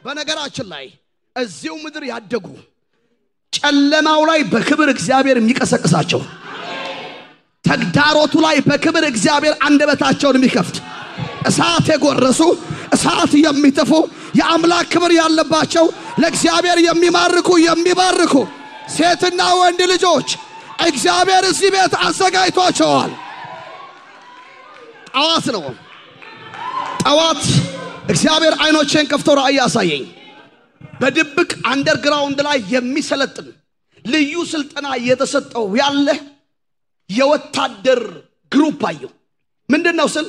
በነገራችን ላይ እዚው ምድር ያደጉ ጨለማው ላይ በክብር እግዚአብሔር የሚቀሰቅሳቸው ተግዳሮቱ ላይ በክብር እግዚአብሔር አንደበታቸውን የሚከፍት እሳት የጎረሱ እሳት የሚተፉ የአምላክ ክብር ያለባቸው ለእግዚአብሔር የሚባርኩ ሴትና ወንድ ልጆች እግዚአብሔር እዚህ ቤት አዘጋጅቷቸዋል ጠዋት እግዚአብሔር አይኖቼን ከፍቶ ራእይ ያሳየኝ በድብቅ አንደርግራውንድ ላይ የሚሰለጥን ልዩ ስልጠና እየተሰጠው ያለ የወታደር ግሩፕ አየሁ ምንድነው ስል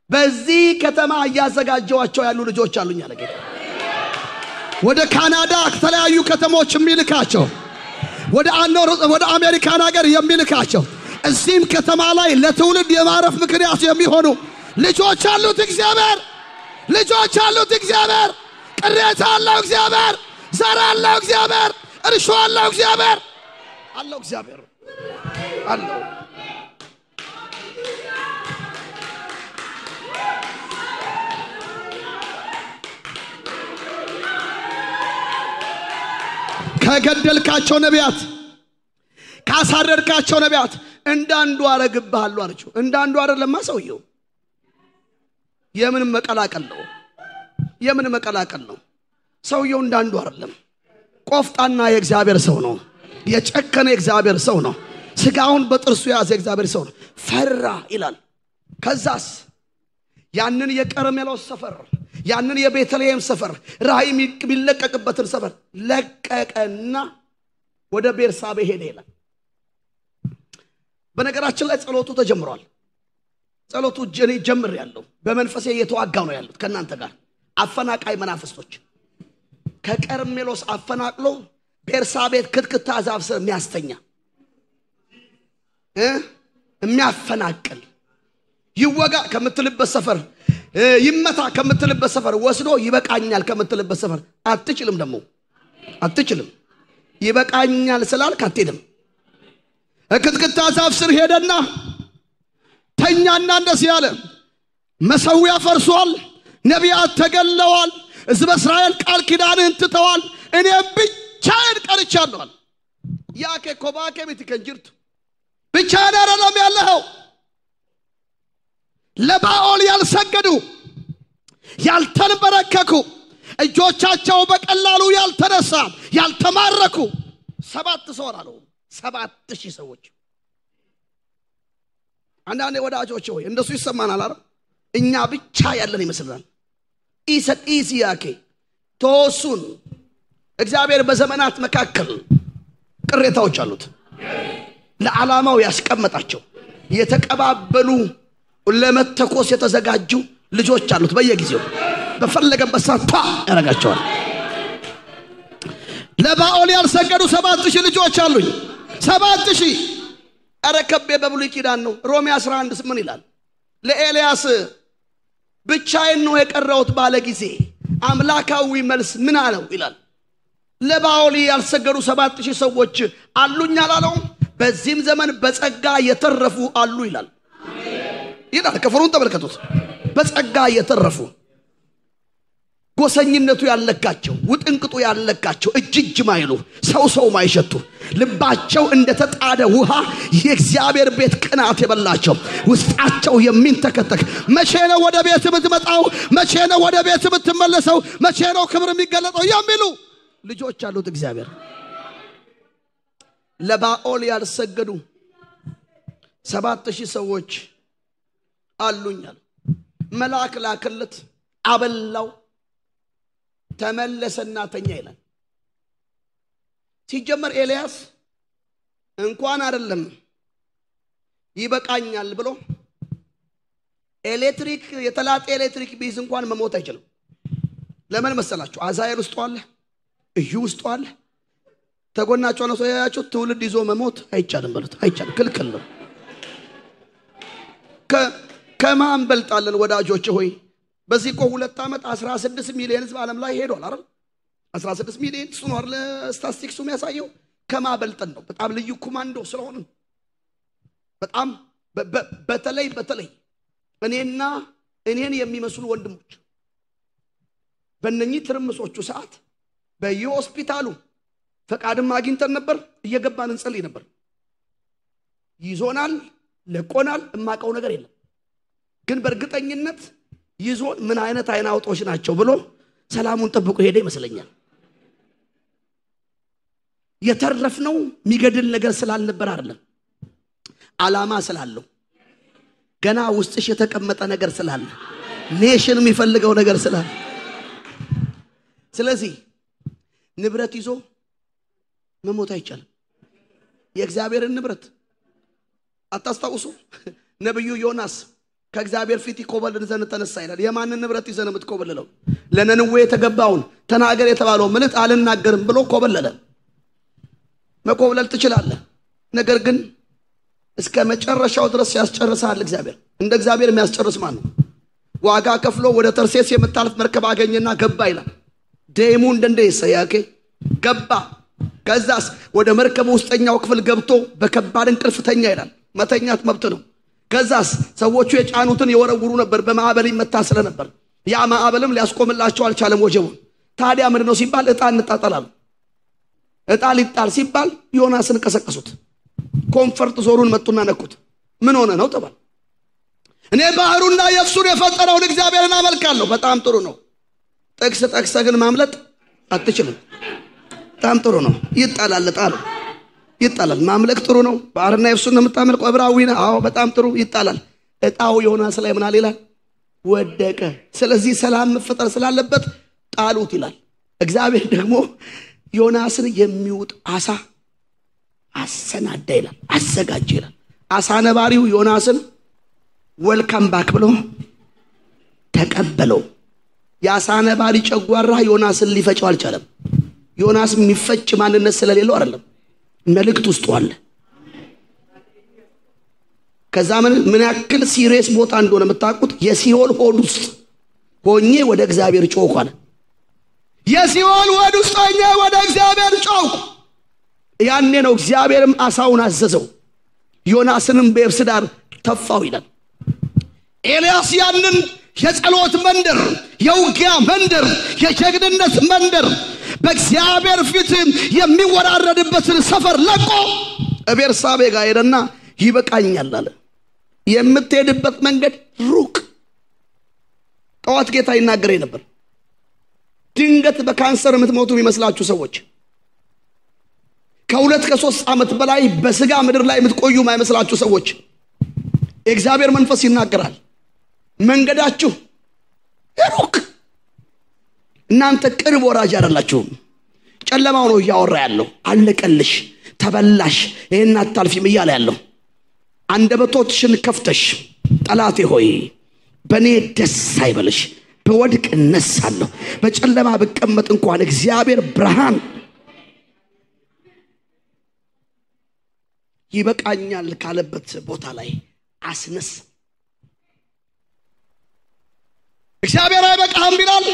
በዚህ ከተማ ያዘጋጀዋቸው ያሉ ልጆች አሉኝ አለ ጌታ ወደ ካናዳ ከተለያዩ ከተሞች የሚልካቸው ወደ አሜሪካን ሀገር የሚልካቸው እዚህም ከተማ ላይ ለትውልድ የማረፍ ምክንያት የሚሆኑ ልጆች አሉት እግዚአብሔር ቅሬታ አለው እግዚአብሔር ዘር አለው እግዚአብሔር እርሾ አለው እግዚአብሔር አለው እግዚአብሔር አለው ከገደልካቸው ነቢያት ካሳረድካቸው ነቢያት እንዳንዱ አረግብሃለሁ አለችው እንዳንዱ አይደለም ሰውየው የምን መቀላቀል ነው ሰውየው እንዳንዱ አይደለም ቆፍጣና የእግዚአብሔር ሰው ነው የጨከነ የእግዚአብሔር ሰው ነው ስጋውን በጥርሱ ያዘ የእግዚአብሔር ሰው ነው ፈራ ይላል ከዛስ ያንን የቀርሜሎስ ሰፈር ያንን የቤተልሔም ሰፈር ራእይ የሚለቀቅበትን ሰፈር ለቀቀና ወደ ቤርሳቤ ሄደ ይላል በነገራችን ላይ ጸሎቱ ተጀምሯል ጸሎቱ ጀምር ያለው በመንፈሴ እየተዋጋው ነው ያሉት ከናንተ ጋር አፈናቃይ መናፍስቶች ከቀርሜሎስ አፈናቅሎ ቤርሳቤት ክትክታ ዛፍ ስር የሚያስተኛ የሚያፈናቅል ይወጋ ከምትልበት ሰፈር ይመታ ከምትልበት ሰፈር ወስዶ ይበቃኛል ከምትልበት ሰፈር አትችልም ይበቃኛል ስላልክ አትሄድም ክትክታ ዛፍ ስር ሄደና ተኛና እንደዚህ ያለ መሰዊያ ፈርሷል ነቢያት ተገለዋል ሕዝበ እስራኤል ቃል ኪዳንን ትተዋል እኔ ብቻዬን ቀርቻለሁ ያከ ኮባከ ቤትከንጅርቱ ብቻዬን አይደለም ያለኸው ለባኦል ያልሰገዱ ያልተንበረከኩ እጆቻቸው በቀላሉ ያልተነሳ ያልተማረኩ 7 ሰው አሉ 7000 ሰዎች አንዳንዴ ወዳጆች ሆይ እንደሱ ይሰማናል አይደል እኛ ብቻ ያለን ይመስላል ኢሲያኬ ተወሱን እግዚአብሔር በዘመናት መካከል ቅሬታዎች አሉት ለዓላማው ያስቀመጣቸው የተቀባበሉ ለመተኮስ የተዘጋጁ ልጆች አሉት በየጊዜው በፈለገበት ሰዓት ያረጋቸዋል ለባኦል ያልሰገዱ 7000 ልጆች አሉኝ 7000 አረከበ በብሉይ ኪዳን ነው ሮሜ 11:8 ይላል ለኤልያስ ብቻዬን ነው የቀረውት ባለ ጊዜ አምላካዊ መልስ ምን አለው ይላል ለባኦል ያልሰገዱ 7000 ሰዎች አሉኝ አላለው በዚህም ዘመን በጸጋ የተረፉ አሉ ይላል ይላል ከፈሩን ተመልከቱት በጸጋ የተረፉ ጎሰኝነቱ ያለካቸው ውጥንቅጡ ያለካቸው እጅጅ ማይሉ ሰው ማይሸቱ ልባቸው እንደተጣደ ውሃ የእግዚአብሔር ቤት ቅናት የበላቸው ውስጣቸው የሚንተከተክ መቼ ነው ወደ ቤት የምትመጣው መቼ ነው ወደ ቤት የምትመለሰው መቼ ነው ክብር የሚገለጠው የሚሉ ልጆች አሉት እግዚአብሔር ለባኦል ያልሰገዱ 7000 ሰዎች አሉኛል መልአክ ላከለት አበላው ተመለሰና ተኛ ይላል ሲጀመር ኤልያስ እንኳን አይደለም ይበቃኛል ብሎ ኤሌክትሪክ የተላጠ ኤሌክትሪክ ቢዝ እንኳን መሞት አይችልም ለምን መሰላችሁ አዛኤል ውስጥ አለ እዩ ውስጥ አለ ተጎናቸው ነው ያያችሁ ትውልድ ይዞ መሞት አይቻልም ማለት አይቻልም ክልክል ነው ከማን በልጣለን ወዳጆች ሆይ በዚህ 2 ዓመት 16 ሚሊዮን ህዝብ ዓለም ላይ ሄዷል አይደል 16 ሚሊዮን ሱኖር ለስታቲስቲክሱ የሚያሳየው ከማበልጠን ነው በጣም ልዩ ኮማንዶ ስለሆነ በጣም በተለይ እኔን የሚመስሉ ወንድሞች በእነኚህ ትርምሶቹ ሰዓት በየሆስፒታሉ ፈቃድም አግኝተን ነበር እየገባን እንጸልይ ነበር ይዞናል ለቆናል እማቀው ነገር የለም ግን በእርግጠኝነት ይዞን ምን አይነት አይናውጦች ናቸው ብሎ ሰላሙን ጠብቆ ሄደ ይመስለኛል የተረፍነው የሚገድል ነገር ስላልነበር አይደለም ዓላማ ስላለው ገና ውስጥሽ የተቀመጠ ነገር ስላለ ኔሽን የሚፈልገው ነገር ስላለ ስለዚህ ንብረት ይዞ መሞት አይቻልም የእግዚአብሔርን ንብረት አታስታውሱ ነብዩ ዮናስ ከእግዚአብሔር ፊት ይኮበልል ዘንድ ተነሳ ይላል የማንን ንብረት ይዘን የምትኮበልለው ለነነዌ የተገባውን ተናገር የተባለው መልእክት አልናገርም ብሎ ኮበለለ መኮብለል ትችላለህ ነገር ግን እስከ መጨረሻው ድረስ ያስጨርሳል እግዚአብሔር እንደ እግዚአብሔር የሚያስጨርስ ማን ነው ዋጋ ከፍሎ ወደ ተርሴስ የምታልፍ መርከብ አገኘና ገባ ይላል ደሙ እንደንደይሰ ያከ ገባ ከዛስ ወደ መርከቡ ውስጠኛው ክፍል ገብቶ በከባድ እንቅልፍ ተኛ ይላል። መተኛት መብት ነው። ከዛስ ሰዎቹ የጫኑትን የወረውሩ ነበር፣ በማዕበል ይመታ ስለነበር ያ ማዕበልም ሊያስቆምላቸው አልቻለም ወጀቡን። ታዲያ ምንድነው ሲባል ዕጣ እንጣጣላሉ። ዕጣ ሊጣል ሲባል ዮናስን ቀሰቀሱት። ኮንፈርት ዞሩን መጡና ነኩት። ምን ሆነ ነው ተባለ። እኔ ባህሩና የብሱን የፈጠረውን እግዚአብሔርን አመልካለሁ። በጣም ጥሩ ነው። ጥቅስ ጠቅሰህ ግን ማምለጥ አትችልም። በጣም ጥሩ ነው። ይጣላል ጣሉ ይጣላል። ማምለክ ጥሩ ነው። ባህርና የብሱን የምታመልከው ዕብራዊ ነህ። አዎ በጣም ጥሩ። ይጣላል። ዕጣው ዮናስ ላይ ምን አለ ይላል? ወደቀ። ስለዚህ ሰላም መፈጠር ስላለበት ጣሉት ይላል። እግዚአብሔር ደግሞ ዮናስን የሚውጥ አሳ አሰናዳ ይላል፣ አዘጋጀ ይላል። አሳ ነባሪው ዮናስን ወልካም ባክ ብሎ ተቀበለው። የአሳ ነባሪ ጨጓራ ዮናስን ሊፈጨው አልቻለም። ዮናስ የሚፈጭ ማንነት ስለሌለው አይደለም፣ መልእክት ውስጥ አለ። ከዛ ምን ያክል ሲሪየስ ቦታ እንደሆነ የምታውቁት የሲኦል ሆድ ውስጥ ሆኜ ወደ እግዚአብሔር ጮኽኩ አለ። የሲኦል ሆድ ውስጥ ሆኜ ወደ እግዚአብሔር ጮኽኩ። ያኔ ነው እግዚአብሔርም አሳውን አዘዘው፣ ዮናስንም በየብስ ዳር ተፋው ይላል። ኤልያስ ያንን የጸሎት መንደር፣ የውጊያ መንደር፣ የጀግንነት መንደር በእግዚአብሔር ፊት የሚወራረድበትን ሰፈር ለቆ ቤርሳቤ ጋር ሄደና ይበቃኛል አለ። የምትሄድበት መንገድ ሩቅ። ጠዋት ጌታ ይናገረኝ ነበር። ድንገት በካንሰር የምትሞቱ የሚመስላችሁ ሰዎች፣ ከ2 ከ3 ዓመት በላይ በስጋ ምድር ላይ የምትቆዩ የማይመስላችሁ ሰዎች የእግዚአብሔር መንፈስ ይናገራል። መንገዳችሁ ሩቅ፣ እናንተ ቅርብ ወራጅ አይደላችሁም። ጨለማው ነው እያወራ ያለው። አለቀልሽ፣ ተበላሽ፣ ይሄን አታልፊም እያለ ያለው። አንደበቶችሽን ከፍተሽ ጠላቴ ሆይ በኔ ደስ አይበልሽ፣ በወድቅ እነሳለሁ፣ በጨለማ ብቀመጥ እንኳን እግዚአብሔር ብርሃን ይበቃኛል ካለበት ቦታ ላይ አስነስ። እግዚአብሔር አይበቃም ይላል።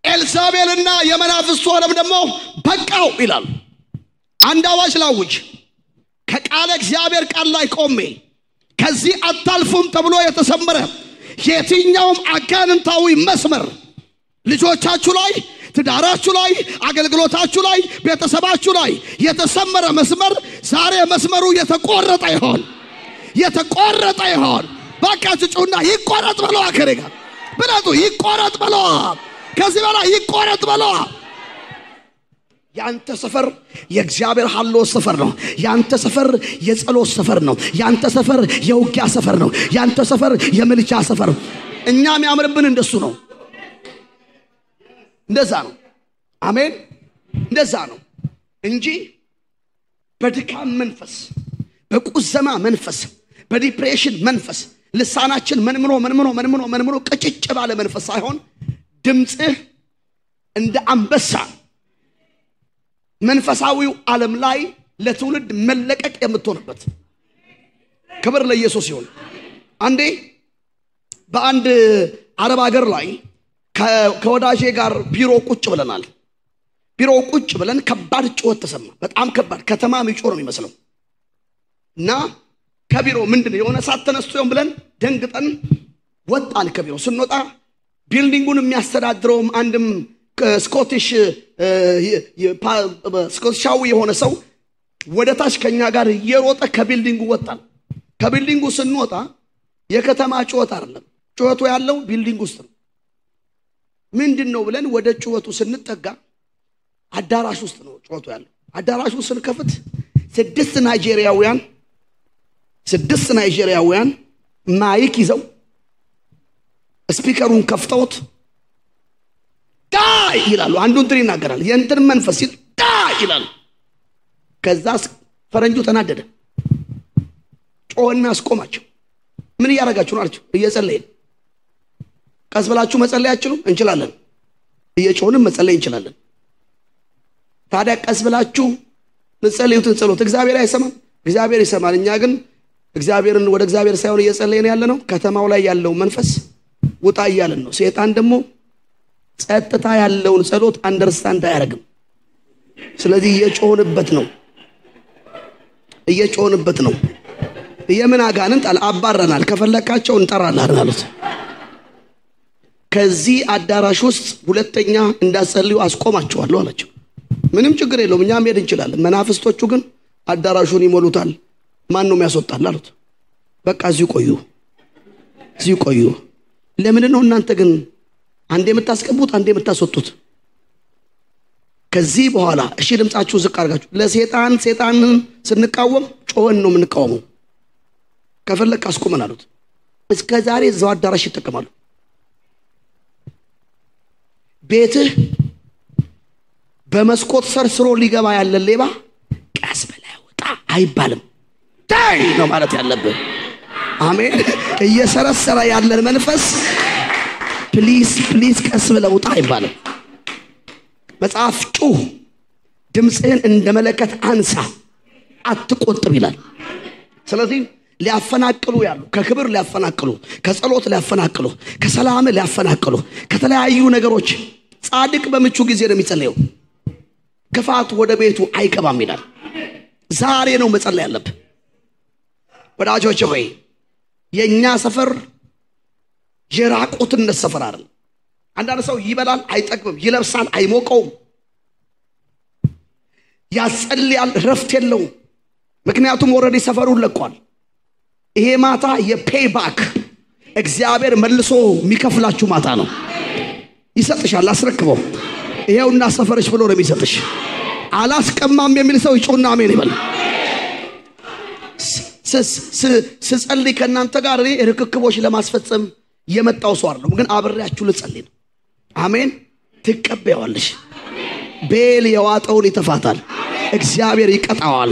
ኤልሳቤልና የመናፍስቱ ዓለም ደግሞ በቃው ይላል። አንድ አዋጅ ላውጅ። ከቃለ እግዚአብሔር ቃል ላይ ቆሜ ከዚህ አታልፉም ተብሎ የተሰመረ የትኛውም አጋንንታዊ መስመር ልጆቻችሁ ላይ፣ ትዳራችሁ ላይ፣ አገልግሎታችሁ ላይ፣ ቤተሰባችሁ ላይ የተሰመረ መስመር ዛሬ መስመሩ የተቆረጠ ይሆን፣ የተቆረጠ ይሆን። ባካችሁ ጩና ይቆረጥ በለው። አከረጋ ብላቱ ይቆረጥ በለው። ከዚህ በላይ ይቆረጥ በለው። ያንተ ሰፈር የእግዚአብሔር ሐሎ ሰፈር ነው። ያንተ ሰፈር የጸሎት ሰፈር ነው። ያንተ ሰፈር የውጊያ ሰፈር ነው። ያንተ ሰፈር የምልጃ ሰፈር ነው። እኛም ያምርብን እንደሱ ነው። እንደዛ ነው። አሜን። እንደዛ ነው እንጂ በድካም መንፈስ፣ በቁዘማ መንፈስ፣ በዲፕሬሽን መንፈስ ልሳናችን መንምኖ ቀጭጭ ባለ መንፈስ ሳይሆን ድምጽህ እንደ አንበሳ መንፈሳዊው ዓለም ላይ ለትውልድ መለቀቅ የምትሆንበት። ክብር ለኢየሱስ ይሁን። አንዴ በአንድ አረብ ሀገር ላይ ከወዳጄ ጋር ቢሮ ቁጭ ብለናል። ቢሮ ቁጭ ብለን ከባድ ጩኸት ተሰማ። በጣም ከባድ፣ ከተማ የሚጮህ ነው የሚመስለው። እና ከቢሮ ምንድነው የሆነ ሰዓት ተነስቶ ይሆን ብለን ደንግጠን ወጣን። ከቢሮ ስንወጣ ቢልዲንጉን የሚያስተዳድረውም አንድም ስኮቲሻዊ የሆነ ሰው ወደ ታች ከኛ ጋር እየሮጠ ከቢልዲንጉ ወጣን። ከቢልዲንጉ ስንወጣ የከተማ ጩኸት አይደለም፣ ጩኸቱ ያለው ቢልዲንግ ውስጥ ነው። ምንድነው ብለን ወደ ጩኸቱ ስንጠጋ አዳራሽ ውስጥ ነው ጩኸቱ ያለው። አዳራሹ ስንከፍት 6 ናይጄሪያውያን ማይክ ይዘው ስፒከሩን ከፍተውት ዳይ ይላሉ። አንዱ እንትን ይናገራል፣ የእንትን መንፈስ ይል ዳይ ይላሉ። ከዛስ ፈረንጁ ተናደደ፣ ጮህና አስቆማቸው። ምን እያደረጋችሁ ነው አላቸው። እየጸለይን። ቀስ ብላችሁ መጸለይ አትችሉም? እንችላለን። እየጮህንም መጸለይ እንችላለን። ታዲያ ቀስ ብላችሁ መጸለዩትን ጸሎት እግዚአብሔር አይሰማም? እግዚአብሔር ይሰማል። እኛ ግን እግዚአብሔርን ወደ እግዚአብሔር ሳይሆን እየጸለይን ያለ ነው። ከተማው ላይ ያለው መንፈስ ውጣ እያለን ነው። ሰይጣን ደግሞ ጸጥታ ያለውን ጸሎት አንደርስታንድ አያደርግም። ስለዚህ እየጮህንበት ነው የምን አጋንንት አባረናል ከፈለካቸው እንጠራለን አሉት ከዚህ አዳራሽ ውስጥ ሁለተኛ እንዳጸልዩ አስቆማቸዋለሁ አላቸው ምንም ችግር የለውም እኛ መሄድ እንችላለን መናፍስቶቹ ግን አዳራሹን ይሞሉታል ማን ነው የሚያስወጣል አሉት በቃ እዚሁ ቆዩ ለምን ነው እናንተ ግን አንዴ የምታስቀቡት አንዴ የምታስወጡት ከዚህ በኋላ እሺ ድምጻችሁ ዝቅ አድርጋችሁ ለሰይጣንን ስንቃወም ጮህን ነው የምንቃወመው ከፈለክ አስቆመን አሉት እስከ ዛሬ እዛው አዳራሽ ይተከማሉ ቤትህ በመስኮት ሰርስሮ ሊገባ ያለ ሌባ ቀስ ብለህ ውጣ አይባልም ታይ ነው ማለት ያለብህ አሜን እየሰረሰረ ያለን መንፈስ ፕሊዝ ቀስ ብለህ ውጣ አይባልም መጽሐፍ ጩህ ድምጽህን እንደመለከት አንሳ አትቆጥብ ይላል ስለዚህ ሊያፈናቅሉ ያሉ ከክብር ሊያፈናቅሉ ከጸሎት ሊያፈናቅሉ ከሰላም ሊያፈናቅሉ ከተለያዩ ነገሮች ጻድቅ በምቹ ጊዜ ነው የሚጸልየው ክፋት ወደ ቤቱ አይገባም ይላል ዛሬ ነው መጸለይ ያለብህ ወዳጆቼ ሆይ የኛ ሰፈር የራቁትነት ሰፈር አይደል አንዳንድ ሰው ይበላል አይጠግብም ይለብሳል አይሞቀውም ያጸልያል ረፍት የለውም ምክንያቱም ኦሬዲ ሰፈሩን ለቋል ይሄ ማታ የፔይባክ እግዚአብሔር መልሶ የሚከፍላችሁ ማታ ነው ይሰጥሻል አስረክበው ይሄውና ሰፈርሽ ብሎ ነው የሚሰጥሽ አላስቀማም የሚል ሰው ይጮና አሜን ይበል ስጸልይ ከናንተ ጋር ርክክቦች ለማስፈጸም የመጣው ሰው አይደለም ግን አብሬያችሁ ልጸልይ ነው አሜን ትቀበያለሽ ቤል የዋጠውን ይተፋታል እግዚአብሔር ይቀጣዋል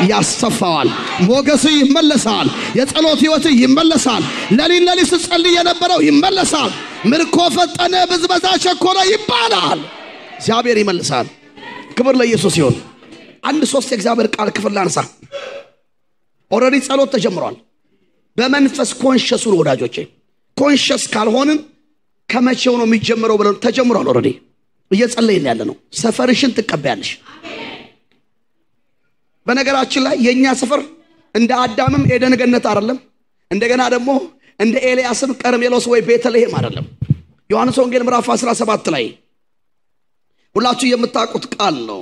ያስተፋዋል ሞገሱ ይመለሳል የጸሎት ህይወት ይመለሳል ለሊት ስጸልይ የነበረው ይመለሳል ምርኮ ፈጠነ በዝበዛ ቸኮለ ይባላል እግዚአብሔር ይመልሳል ክብር ለኢየሱስ ይሁን አንድ ሶስት የእግዚአብሔር ቃል ክፍል ላንሳ ኦሬዲ ጸሎት ተጀምሯል በመንፈስ ኮንሺየስ ነው ወዳጆቼ ኮንሺየስ ካልሆንን ከመቼው ነው የሚጀምረው ብለን ተጀምሯል ኦሬዲ እየጸለይን ያለ ነው ሰፈርሽን ትቀበያለሽ በነገራችን ላይ የኛ ሰፈር እንደ አዳምም ኤደን ገነት አይደለም እንደገና ደግሞ እንደ ኤልያስም ቀርሜሎስ ወይ ቤተልሔም አይደለም ዮሐንስ ወንጌል ምዕራፍ 17 ላይ ሁላችሁ የምታውቁት ቃል ነው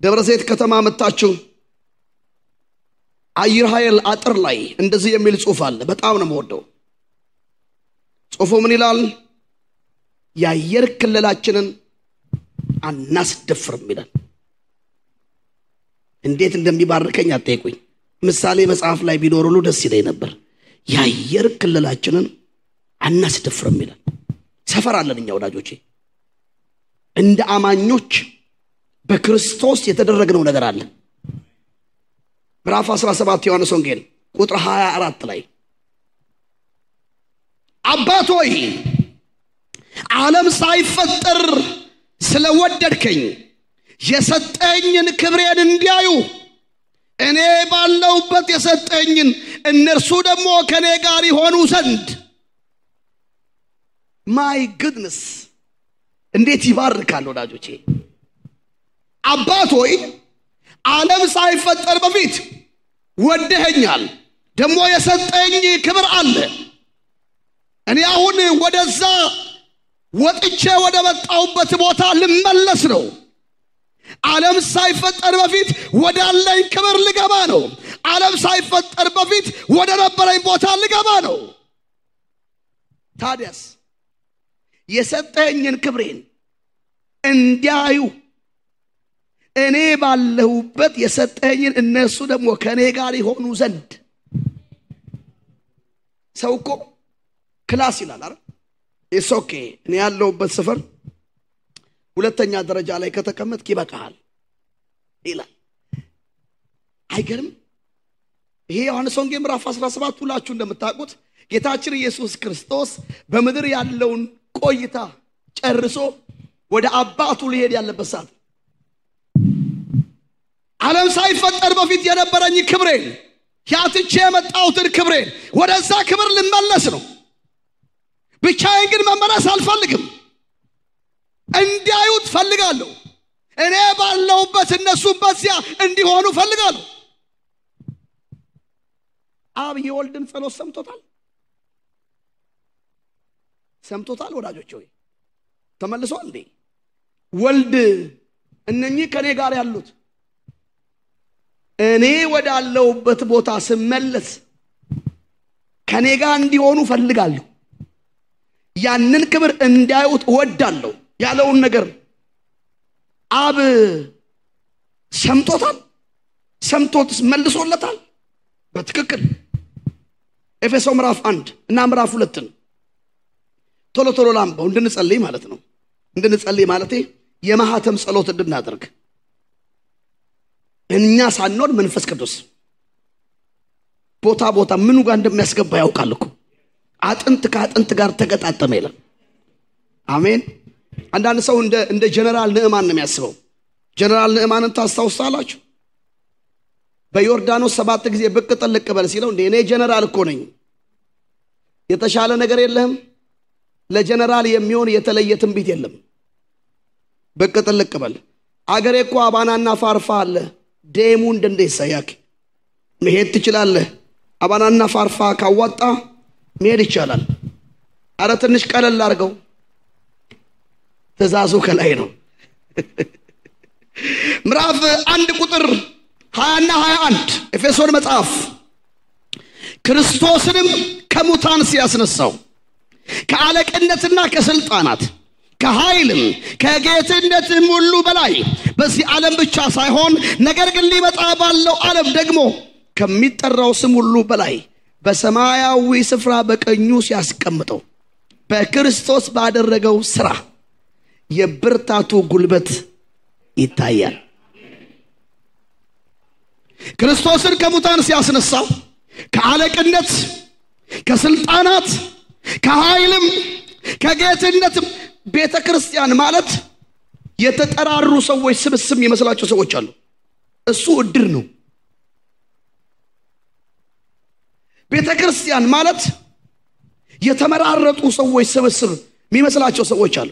ደብረ ዘይት ከተማ መጣችሁ አየር ኃይል አጥር ላይ እንደዚህ የሚል ጽሑፍ አለ በጣም ነው የምወደው ጽሑፉ ምን ይላል የአየር ክልላችንን አናስደፍርም ይላል እንዴት እንደሚባርከኝ አትጠይቁኝ ምሳሌ መጽሐፍ ላይ ቢኖር ሁሉ ደስ ይለኝ ነበር የአየር ክልላችንን አናስደፍርም ይላል ሰፈር አለን እኛ ወዳጆቼ እንደ አማኞች በክርስቶስ የተደረገው ነገር አለ ምዕራፍ 17 ዮሐንስ ወንጌል ቁጥር 24 ላይ አባቶይ ዓለም ሳይፈጠር ስለወደድከኝ የሰጠኝን ክብሬን እንዲያዩ እኔ ባለውበት የሰጠኝን እነርሱ ደግሞ ከኔ ጋር ይሆኑ ዘንድ ማይ ጉድነስ እንዴት ይባርካል ወዳጆቼ አባቶይ ዓለም ሳይፈጠር በፊት ወደኸኛል ደግሞ የሰጠኝ ክብር አለ እኔ አሁን ወደዛ ወጥቼ ወደ መጣሁበት ቦታ ልመለስ ነው ዓለም ሳይፈጠር በፊት ወዳለኝ ክብር ልገባ ነው ዓለም ሳይፈጠር በፊት ወደ ነበረኝ ቦታ ልገባ ነው ታዲያስ የሰጠኝን ክብሬን እንዲያዩ እኔ ባለሁበት የሰጠኝን እነሱ ደግሞ ከኔ ጋር ይሆኑ ዘንድ ሰውኮ ክላስ ይላል አይደል ኢሶኬ እኔ ያለሁበት ሰፈር ሁለተኛ ደረጃ ላይ ከተቀመጥክ ይበቃል ይላል አይገርም ይሄ ዮሐንስ ወንጌል ምዕራፍ 17 ሁላችሁ እንደምታውቁት ጌታችን ኢየሱስ ክርስቶስ በመድር ያለውን ቆይታ ጨርሶ ወደ አባቱ ሊሄድ ያለበት ሰዓት ዓለም ሳይፈጠር በፊት የነበረኝ ክብሬን ያትቼ የመጣሁትን ክብሬን ወደዛ ክብር ልመለስ ነው ብቻዬን ግን መመለስ አልፈልግም እንዲያዩት ፈልጋለሁ እኔ ባለሁበት እነሱም በዚያ እንዲሆኑ ፈልጋለሁ። አብ የወልድን ጸሎት ሰምቶታል ወዳጆች ሆይ ተመልሷል እንዴ? ወልድ እነኚህ ከኔ ጋር ያሉት እኔ ወዳለሁበት ቦታ ስመለስ ከኔ ጋር እንዲሆኑ ፈልጋለሁ፣ ያንን ክብር እንዲያዩት እወዳለሁ ያለውን ነገር አብ ሰምቶት መልሶለታል በትክክል። ኤፌሶን ምዕራፍ 1 እና ምዕራፍ 2 ቶሎ ላምበው እንድንጸልይ ማለት ነው። እንድንጸልይ ማለት የማህተም ጸሎት እንድናደርግ እኛ ሳንኖር መንፈስ ቅዱስ ቦታ ምኑ ጋር እንደሚያስገባ ያውቃል እኮ። አጥንት ከአጥንት ጋር ተገጣጠመ ይላል። አሜን። አንዳንድ ሰው እንደ ጀነራል ንዕማን ነው የሚያስበው። ጀነራል ንዕማንን ታስታውሳላችሁ? በዮርዳኖስ 7 ጊዜ ብቅ ጥልቅ በል ሲለው እኔ ጀነራል እኮ ነኝ፣ የተሻለ ነገር የለህም? ለጀነራል የሚሆን የተለየ ትንቢት የለም። ብቅ ጥልቅ በል። አገሬ እኮ አባናና ፋርፋ አለ፣ ደሙ እንደንደ ይሳያክ መሄድ ትችላለህ። አባናና ፋርፋ ካዋጣ መሄድ ይቻላል። አረ ትንሽ ቀለል አድርገው፣ ትእዛዙ ከላይ ነው። ምዕራፍ 1 ቁጥር 20 እና 21 ኤፌሶን መጽሐፍ ክርስቶስንም ከሙታን ሲያስነሳው ከአለቅነትና ከስልጣናት ከኃይልም ከጌትነትም ሁሉ በላይ በዚህ ዓለም ብቻ ሳይሆን ነገር ግን ሊመጣ ባለው ዓለም ደግሞ ከሚጠራው ስም ሁሉ በላይ በሰማያዊ ስፍራ በቀኙ ሲያስቀምጠው በክርስቶስ ባደረገው ሥራ የብርታቱ ጉልበት ይታያል። ክርስቶስን ከሙታን ሲያስነሳው ከአለቅነት ከስልጣናት ከኃይልም ከጌትነትም ቤተክርስቲያን ማለት የተጠራሩ ሰዎች ስብስብ የሚመስላቸው ሰዎች አሉ። እሱ እድር ነው። ቤተክርስቲያን ማለት የተመራረጡ ሰዎች ስብስብ የሚመስላቸው ሰዎች አሉ።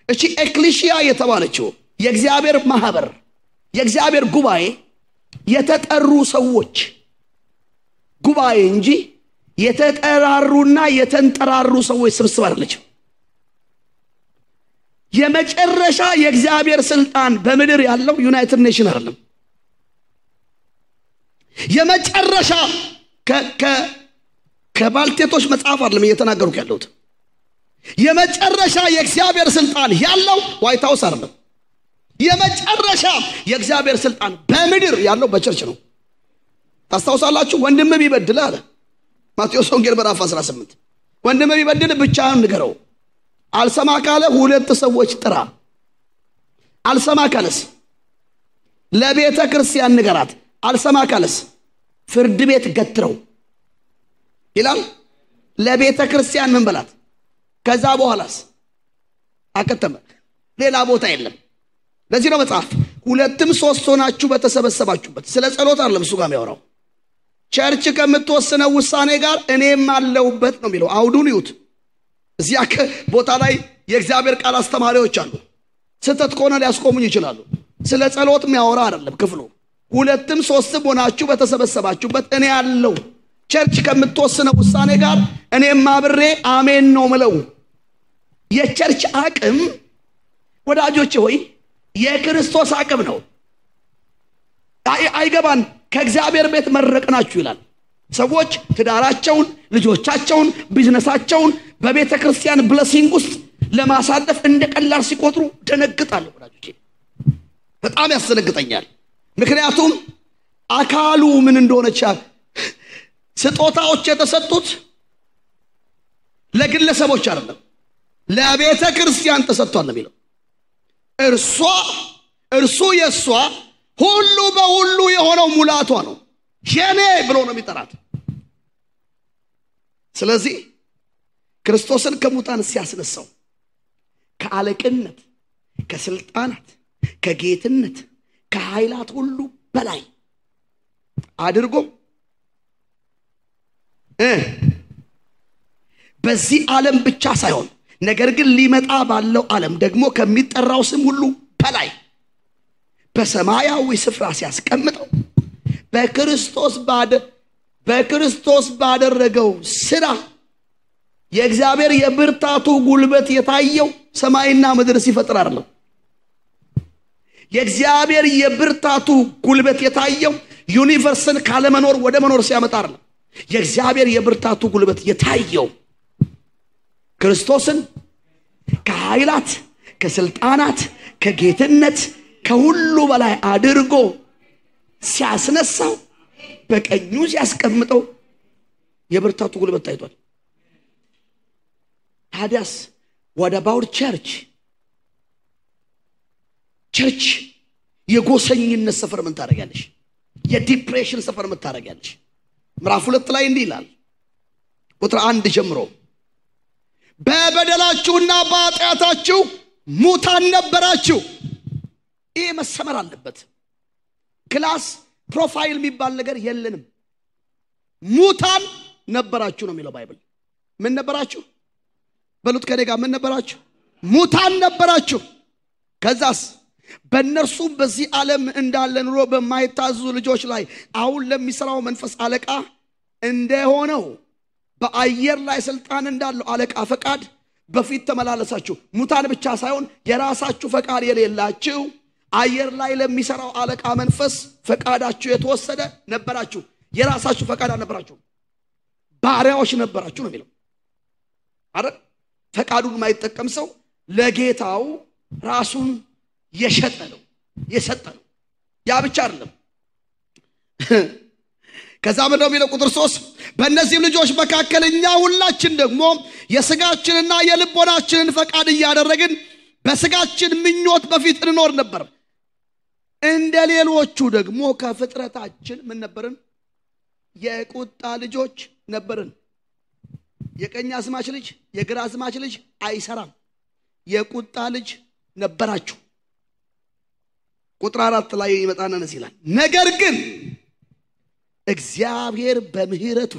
እቺ ኤክሌሲያ የተባለችው የእግዚአብሔር ማህበር የእግዚአብሔር ጉባኤ የተጠሩ ሰዎች ጉባኤ እንጂ የተጠራሩና የተንጠራሩ ሰዎች ስብስብ አይደለችም። የመጨረሻ የእግዚአብሔር ስልጣን በምድር ያለው ዩናይትድ ኔሽን አይደለም። የመጨረሻ ከባልቴቶች መጽሐፍ አይደለም እየተናገሩክ ያለሁት። የመጨረሻ የእግዚአብሔር ስልጣን ያለው ዋይት ሃውስ አይደለም። የመጨረሻ የእግዚአብሔር ስልጣን በምድር ያለው በቸርች ነው። ታስታውሳላችሁ? ወንድም ቢበድል አለ ማቴዎስ ወንጌል ምዕራፍ 18 ወንድም ቢበድል ብቻህን ንገረው፣ አልሰማ ካለ 2 ሰዎች ጥራ፣ አልሰማ ካለስ ለቤተ ክርስቲያን ንገራት፣ አልሰማ ካለስ ፍርድ ቤት ገትረው ይላል። ለቤተ ክርስቲያን ምን በላት? ከዛ በኋላስ አከተመ። ሌላ ቦታ የለም። ለዚህ ነው መጽሐፍ 2ም 3 ሆናችሁ በተሰበሰባችሁበት ስለ ጸሎት አይደለም እሱ ጋር የሚያወራው። ቸርች ከምትወስነው ውሳኔ ጋር እኔም አለውበት ነው የሚለው። አውዱን ይዩት። እዚያ ቦታ ላይ የእግዚአብሔር ቃል አስተማሪዎች አሉ። ስተት ከሆነ ሊያስቆሙኝ ይችላሉ። ስለ ጸሎት የሚያወራ አይደለም ክፍሉ። 2ም 3ም ሆናችሁ በተሰበሰባችሁበት እኔ አለው። ቸርች ከምትወስነው ውሳኔ ጋር እኔም አብሬ አሜን ነው ምለው። የቸርች አቅም ወዳጆቼ ሆይ የክርስቶስ አቅም ነው። አይገባን ከእግዚአብሔር ቤት መረቅናችሁ ይላል። ሰዎች ትዳራቸውን፣ ልጆቻቸውን፣ ቢዝነሳቸውን በቤተ ክርስቲያን ብለሲንግ ውስጥ ለማሳለፍ እንደቀላል ሲቆጥሩ ደነግጣለሁ ወዳጆቼ። በጣም ያስደነግጠኛል። ምክንያቱም አካሉ ምን እንደሆነች ስጦታዎች የተሰጡት ለግለሰቦች አይደለም፣ ለቤተ ክርስቲያን ተሰጥቷል ነው የሚለው። እርሱ የሷ ሁሉ በሁሉ የሆነው ሙላቷ ነው። የኔ ብሎ ነው የሚጠራት። ስለዚህ ክርስቶስን ከሙታን ሲያስነሳው ከአለቅነት ከስልጣናት ከጌትነት ከኃይላት ሁሉ በላይ አድርጎ በዚህ ዓለም ብቻ ሳይሆን ነገር ግን ሊመጣ ባለው ዓለም ደግሞ ከሚጠራው ስም ሁሉ በላይ በሰማያዊ ስፍራ ሲያስቀምጠው በክርስቶስ ባደረገው ስራ የእግዚአብሔር የብርታቱ ጉልበት የታየው ሰማይና ምድር ሲፈጥር አይደለም። የእግዚአብሔር የብርታቱ ጉልበት የታየው ዩኒቨርስን ካለመኖር ወደ መኖር ሲያመጣ አይደለም። የእግዚአብሔር የብርታቱ ጉልበት የታየው ክርስቶስን ከኃይላት ከስልጣናት ከጌትነት ከሁሉ በላይ አድርጎ ሲያስነሳው በቀኙ ሲያስቀምጠው የብርታቱ ጉልበት ታይቷል። ታዲያስ what about church የጎሰኝነት ሰፈር ምን ታረጋለሽ? የዲፕሬሽን ሰፈር ምን ታረጋለሽ? ምዕራፍ 2 ላይ እንዲህ ይላል ቁጥር 1 ጀምሮ በበደላችሁና በኃጢአታችሁ ሙታን ነበራችሁ። ይሄ መሰመር አለበት። ክላስ ፕሮፋይል የሚባል ነገር የለንም። ሙታን ነበራችሁ ነው የሚለው ባይብል። ምን ነበራችሁ? በሉት ከኔ ጋር ምን ነበራችሁ? ሙታን ነበራችሁ። ከዛስ በእነርሱ በዚህ ዓለም እንዳለ ኑሮ በማይታዘዙ ልጆች ላይ አሁን ለሚሰራው መንፈስ አለቃ እንደሆነው በአየር ላይ ስልጣን እንዳለው አለቃ ፈቃድ በፊት ተመላለሳችሁ። ሙታን ብቻ ሳይሆን የራሳችሁ ፈቃድ የሌላችሁ አየር ላይ ለሚሰራው አለቃ መንፈስ ፈቃዳችሁ የተወሰደ ነበራችሁ። የራሳችሁ ፈቃድ አልነበራችሁ፣ ባሪያዎች ነበራችሁ ነው የሚለው አይደል? ፈቃዱን የማይጠቀም ሰው ለጌታው ራሱን የሸጠ ነው የሰጠ ነው። ያ ብቻ አይደለም። ከዛ ምን ነው የሚለው ቁጥር 3 በእነዚህ ልጆች መካከል እኛ ሁላችን ደግሞ የሥጋችንና የልቦናችንን ፈቃድ እያደረግን በሥጋችን ምኞት በፊት እንኖር ነበር። እንደ ሌሎቹ ደግሞ ከፍጥረታችን ምን ነበርን? የቁጣ ልጆች ነበርን። የቀኝ አዝማች ልጅ የግራ አዝማች ልጅ አይሰራም። የቁጣ ልጅ ነበራችሁ። ቁጥር 4 ላይ ይመጣና ነስ ይላል ነገር ግን እግዚአብሔር በምህረቱ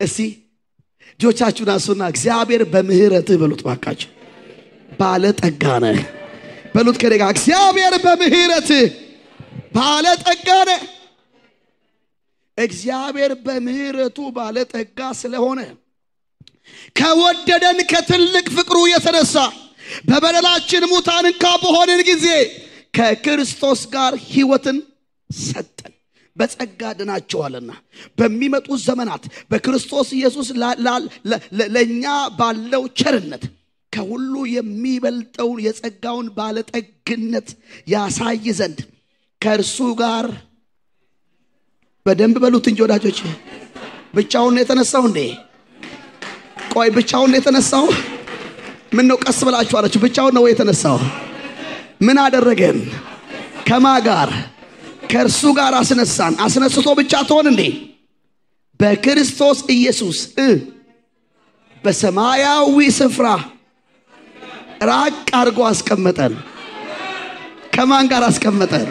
እስቲ ጆቻችሁን አንሱና እግዚአብሔር በምህረቱ በሉት ባካችሁ። ባለጠጋ ነህ በሉት ከደጋ እግዚአብሔር በምህረቱ ባለጠጋ ነህ። እግዚአብሔር በምህረቱ ባለጠጋ ስለሆነ ከወደደን ከትልቅ ፍቅሩ የተነሳ በበደላችን ሙታን እንኳ በሆንን ጊዜ ከክርስቶስ ጋር ሕይወትን ሰጠን። በጸጋ ድናችኋልና በሚመጡ ዘመናት በክርስቶስ ኢየሱስ ለኛ ባለው ቸርነት ከሁሉ የሚበልጠውን የጸጋውን ባለጠግነት ያሳይ ዘንድ ከእርሱ ጋር በደንብ በሉት እንጂ ወዳጆች። ብቻውን ነው የተነሳው እንዴ? ቆይ ብቻውን ነው የተነሳው? ምን ነው ቀስ ብላችሁ አላችሁ? ብቻውን ነው የተነሳው? ምን አደረገን? ከማ ጋር? ከእርሱ ጋር አስነሳን። አስነስቶ ብቻ ተሆን እንዴ? በክርስቶስ ኢየሱስ በሰማያዊ ስፍራ ራቅ አድርጎ አስቀመጠን። ከማን ጋር አስቀመጠን?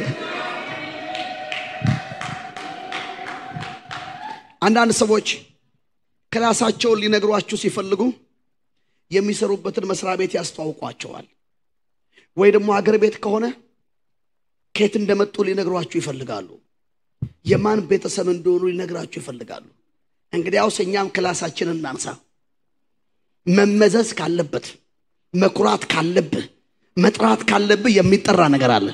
አንዳንድ ሰዎች ክላሳቸውን ሊነግሯችሁ ሲፈልጉ የሚሰሩበትን መስሪያ ቤት ያስተዋውቋቸዋል። ወይ ደግሞ አገር ቤት ከሆነ ከየት እንደመጡ ሊነግሯችሁ ይፈልጋሉ። የማን ቤተሰብ እንደሆኑ ሊነግራችሁ ይፈልጋሉ። እንግዲያውስ እኛም ክላሳችንን እናንሳ። መመዘዝ ካለበት መኩራት ካለበት መጥራት ካለበት የሚጠራ ነገር አለ።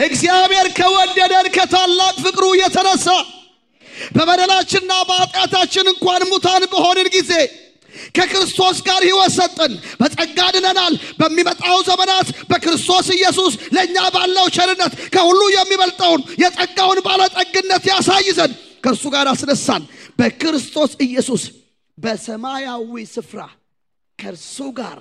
እግዚአብሔር ከወደደን ከታላቅ ፍቅሩ የተነሳ በበደላችንና በኃጢአታችን እንኳን ሙታን በሆንን ጊዜ ከክርስቶስ ጋር ሕይወት ሰጠን። በጸጋ ድነናል። በሚመጣው ዘመናት በክርስቶስ ኢየሱስ ለኛ ባለው ቸርነት ከሁሉ የሚበልጠውን የጸጋውን ባለጠግነት ያሳይ ዘንድ ከእርሱ ጋር አስነሳን። በክርስቶስ ኢየሱስ በሰማያዊ ስፍራ ከእርሱ ጋር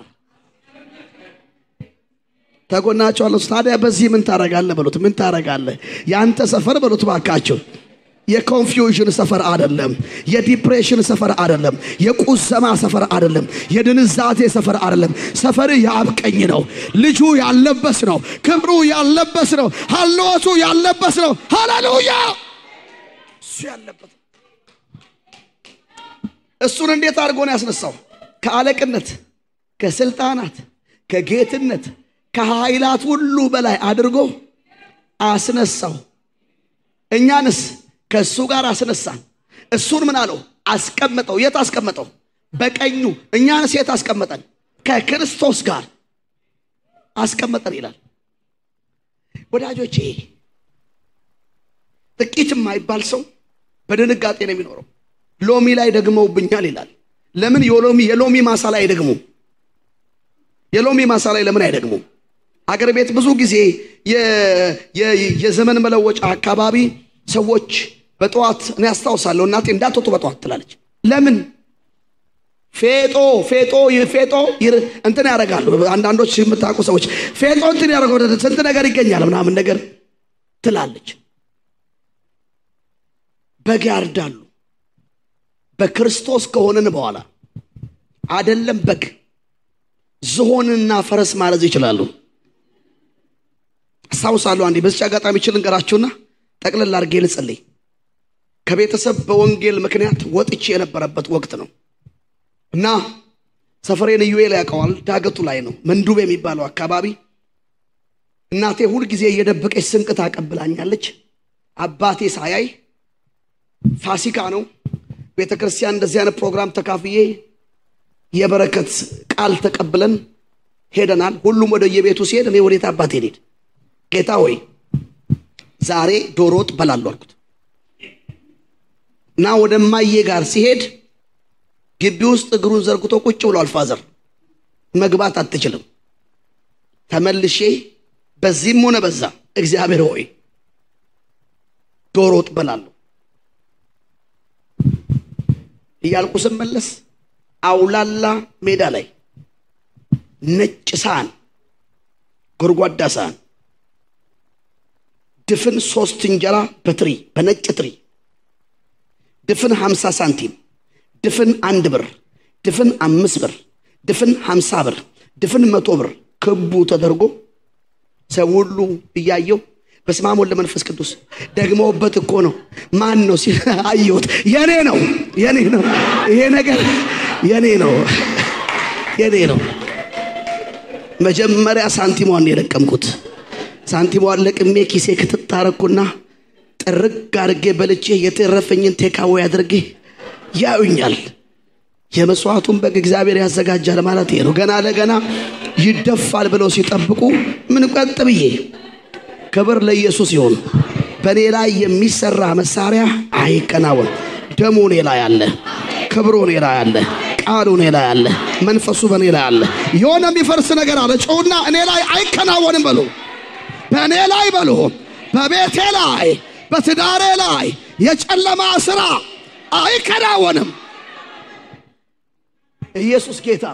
ተጎናቸዋለሁ። ታዲያ በዚህ ምን ታረጋለህ በሉት። ምን ታረጋለህ? ያንተ ሰፈር በሉት ባካችሁ የኮንፊውዥን ሰፈር አይደለም። የዲፕሬሽን ሰፈር አይደለም። የቁዘማ ሰፈር አይደለም። የድንዛዜ ሰፈር አይደለም። ሰፈር ያብቀኝ ነው። ልጁ ያለበስ ነው። ክብሩ ያለበስ ነው። ሐልወቱ ያለበስ ነው። ሃሌሉያ! እሱ ያለበት እሱን እንዴት አድርጎ ነው ያስነሳው? ከአለቅነት ከስልጣናት ከጌትነት ከኃይላት ሁሉ በላይ አድርጎ አስነሳው። እኛንስ ከሱ ጋር አስነሳን። እሱን ምን አለው? አስቀመጠው። የት አስቀመጠው? በቀኙ። እኛንስ የት አስቀመጠን? ከክርስቶስ ጋር አስቀመጠን ይላል። ወዳጆቼ ጥቂት የማይባል ሰው በድንጋጤ ነው የሚኖረው። ሎሚ ላይ ደግመውብኛል ይላል። ለምን የሎሚ ማሳ ላይ አይደግሙ? የሎሚ ማሳ ላይ ለምን አይደግሙ? አገር ቤት ብዙ ጊዜ የዘመን መለወጫ አካባቢ ሰዎች በጠዋት እኔ አስታውሳለሁ እናቴ እንዳትወጡ በጠዋት ትላለች። ለምን? ፌጦ እንትን ያደርጋሉ። አንዳንዶች የምታውቁ ሰዎች ፌጦ እንትን ያደርጋሉ፣ ስንት ነገር ይገኛል ምናምን ነገር ትላለች። በግ ያርዳሉ። በክርስቶስ ከሆነን በኋላ አይደለም በግ ዝሆንና ፈረስ ማረዝ ይችላሉ። አስታውሳለሁ አንዴ በዚህ አጋጣሚ ልንገራችሁና ጠቅለል አድርጌ ልጸልይ። ከቤተሰብ በወንጌል ምክንያት ወጥቼ የነበረበት ወቅት ነው እና ሰፈሬን ኢዩኤል ያውቀዋል። ዳገቱ ላይ ነው፣ መንዱብ የሚባለው አካባቢ። እናቴ ሁል ጊዜ እየደበቀች ስንቅ ታቀብላኛለች። አባቴ ሳያይ ፋሲካ ነው ቤተክርስቲያን እንደዚህ አይነት ፕሮግራም ተካፍዬ የበረከት ቃል ተቀብለን ሄደናል። ሁሉም ወደ የቤቱ ሲሄድ እኔ ወዴት አባቴ ሄድ? ጌታ ሆይ ዛሬ ዶሮ ወጥ በላለሁ አልኩት እና ወደ ማዬ ጋር ሲሄድ ግቢ ውስጥ እግሩን ዘርግቶ ቁጭ ብሏል። ፋዘር መግባት አትችልም። ተመልሼ በዚህም ሆነ በዛ እግዚአብሔር ሆይ ዶሮ ወጥ በላለሁ እያልኩ ስመለስ አውላላ ሜዳ ላይ ነጭ ሳህን፣ ጎርጓዳ ሳህን፣ ድፍን 3 እንጀራ በትሪ በነጭ ትሪ፣ ድፍን 50 ሳንቲም፣ ድፍን 1 ብር፣ ድፍን 5 ብር፣ ድፍን 50 ብር፣ ድፍን 100 ብር ክቡ ተደርጎ ሰው ሁሉ እያየው በስመ አብ ወወልድ ወመንፈስ ቅዱስ ደግሞበት እኮ ነው። ማን ነው ሲል አየሁት። የኔ ነው ይሄ ነገር የኔ ነው። መጀመሪያ ሳንቲሟን የለቀምኩት። ሳንቲሟን ለቅሜ ኪሴ ክትታረኩና ጥርግ አድርጌ በልቼ የተረፈኝን ቴካዌ አድርጌ ያዩኛል። የመስዋዕቱን በግ እግዚአብሔር ያዘጋጃል ማለት ነው። ገና ለገና ይደፋል ብለው ሲጠብቁ ምን ቀጥ ብዬ ክብር ለኢየሱስ ይሁን። በኔ ላይ የሚሰራ መሳሪያ አይከናወን። ደሙ እኔ ላይ አለ፣ ክብሩ እኔ ላይ አለ፣ ቃሉ እኔ ላይ አለ፣ መንፈሱ በኔ ላይ አለ። የሆነ የሚፈርስ ነገር አለ ጮውና እኔ ላይ አይከናወንም በሉ። በእኔ ላይ በሉ፣ በቤቴ ላይ፣ በትዳሬ ላይ የጨለማ ስራ አይከናወንም። ኢየሱስ ጌታ።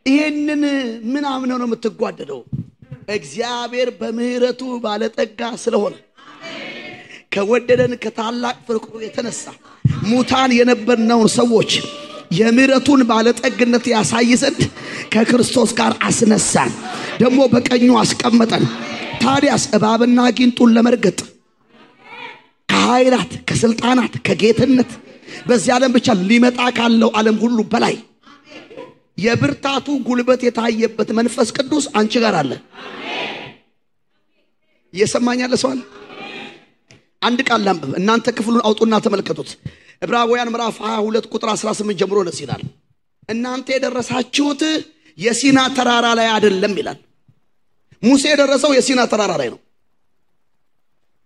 ይሄንን ምን አምነው ነው የምትጓደደው? እግዚአብሔር በምህረቱ ባለጠጋ ስለሆነ ከወደደን ከታላቅ ፍቅሩ የተነሳ ሙታን የነበርነውን ሰዎች የምህረቱን ባለጠግነት ያሳይ ዘንድ ከክርስቶስ ጋር አስነሳን፣ ደግሞ በቀኙ አስቀመጠን። ታዲያስ እባብና ጊንጡን ለመርገጥ ከኃይላት ከስልጣናት ከጌትነት በዚህ ዓለም ብቻ ሊመጣ ካለው ዓለም ሁሉ በላይ የብርታቱ ጉልበት የታየበት መንፈስ ቅዱስ አንቺ ጋር አለ። እየሰማኛል ሰው አለ? አንድ ቃል ላንብብ፣ እናንተ ክፍሉን አውጡና ተመልከቱት። ዕብራውያን ምዕራፍ 22 ቁጥር 18 ጀምሮ ነው ይላል። እናንተ የደረሳችሁት የሲና ተራራ ላይ አይደለም ይላል። ሙሴ የደረሰው የሲና ተራራ ላይ ነው።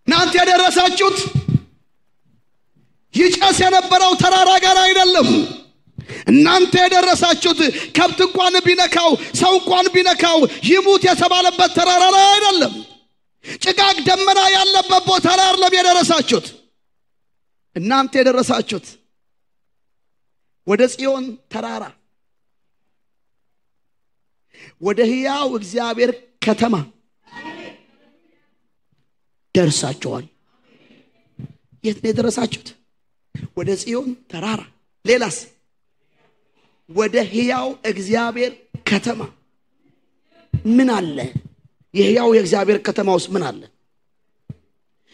እናንተ የደረሳችሁት ይጨስ የነበረው ተራራ ጋር አይደለም። እናንተ የደረሳችሁት ከብት እንኳን ቢነካው ሰው እንኳን ቢነካው ይሙት የተባለበት ተራራ ላይ አይደለም። ጭጋግ ደመና ያለበት ቦታ ላይ አይደለም የደረሳችሁት። እናንተ የደረሳችሁት ወደ ጽዮን ተራራ ወደ ሕያው እግዚአብሔር ከተማ ደርሳችኋል። የት ነው የደረሳችሁት? ወደ ጽዮን ተራራ። ሌላስ? ወደ ሕያው እግዚአብሔር ከተማ። ምን አለ? የሕያው የእግዚአብሔር ከተማ ውስጥ ምን አለ?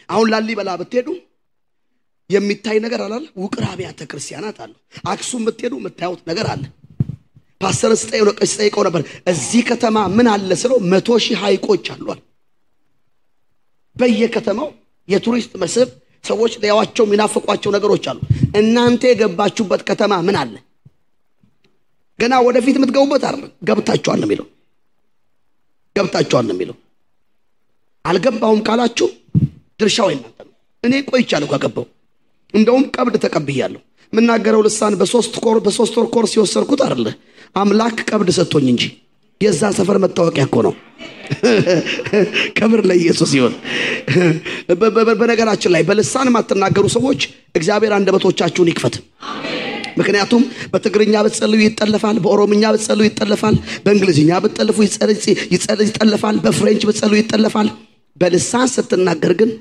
አሁን ላሊበላ ብትሄዱ የሚታይ ነገር አለ። ውቅር አብያተ ክርስቲያናት አሉ። አክሱም ብትሄዱ የምታዩት ነገር አለ። ፓስተር ስጠይቀው ነበር እዚህ ከተማ ምን አለ ስለው 100,000 ሐይቆች አሏል በየከተማው የቱሪስት መስህብ ሰዎች ለያዋቸው የሚናፍቋቸው ነገሮች አሉ እናንተ የገባችሁበት ከተማ ምን አለ ገና ወደፊት የምትገቡበት አይደል ገብታችኋል ነው የሚለው አልገባውም ካላችሁ ድርሻው እናንተ ነው እኔ ቆይቻለሁ ከገባው እንደውም ቀብድ ተቀብያለሁ ምናገረው ልሳን በሶስት ወር ኮርስ ሲወሰርኩት አይደል አምላክ ቀብድ ሰጥቶኝ እንጂ የዛ ሰፈር መታወቂያ እኮ ነው ክብር ለኢየሱስ ይሁን በነገራችን ላይ በልሳን ማትናገሩ ሰዎች እግዚአብሔር አንደበቶቻችሁን ይክፈት ምክንያቱም በትግርኛ በጸልዩ ይጠለፋል በኦሮምኛ በጸልዩ ይጠለፋል በእንግሊዝኛ በተጠለፉ ይጠለፋል በፍሬንች በጸልዩ ይጠለፋል በልሳን ስትናገር ግን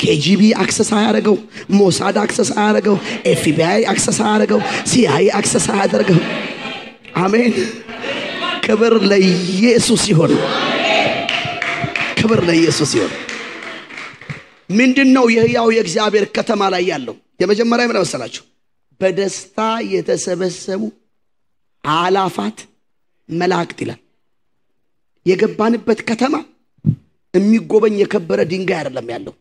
KGB አክሰስ አያረገው ሞሳድ አክሰስ አያረገው FBI አክሰስ አያረገው CIA አክሰስ አያደርገው አሜን ክብር ለኢየሱስ ይሁን ክብር ለኢየሱስ ይሁን ምንድነው የሕያው የእግዚአብሔር ከተማ ላይ ያለው የመጀመሪያ ምን መሰላችሁ በደስታ የተሰበሰቡ አላፋት መላእክት ይላል የገባንበት ከተማ የሚጎበኝ የከበረ ድንጋይ አይደለም ያለው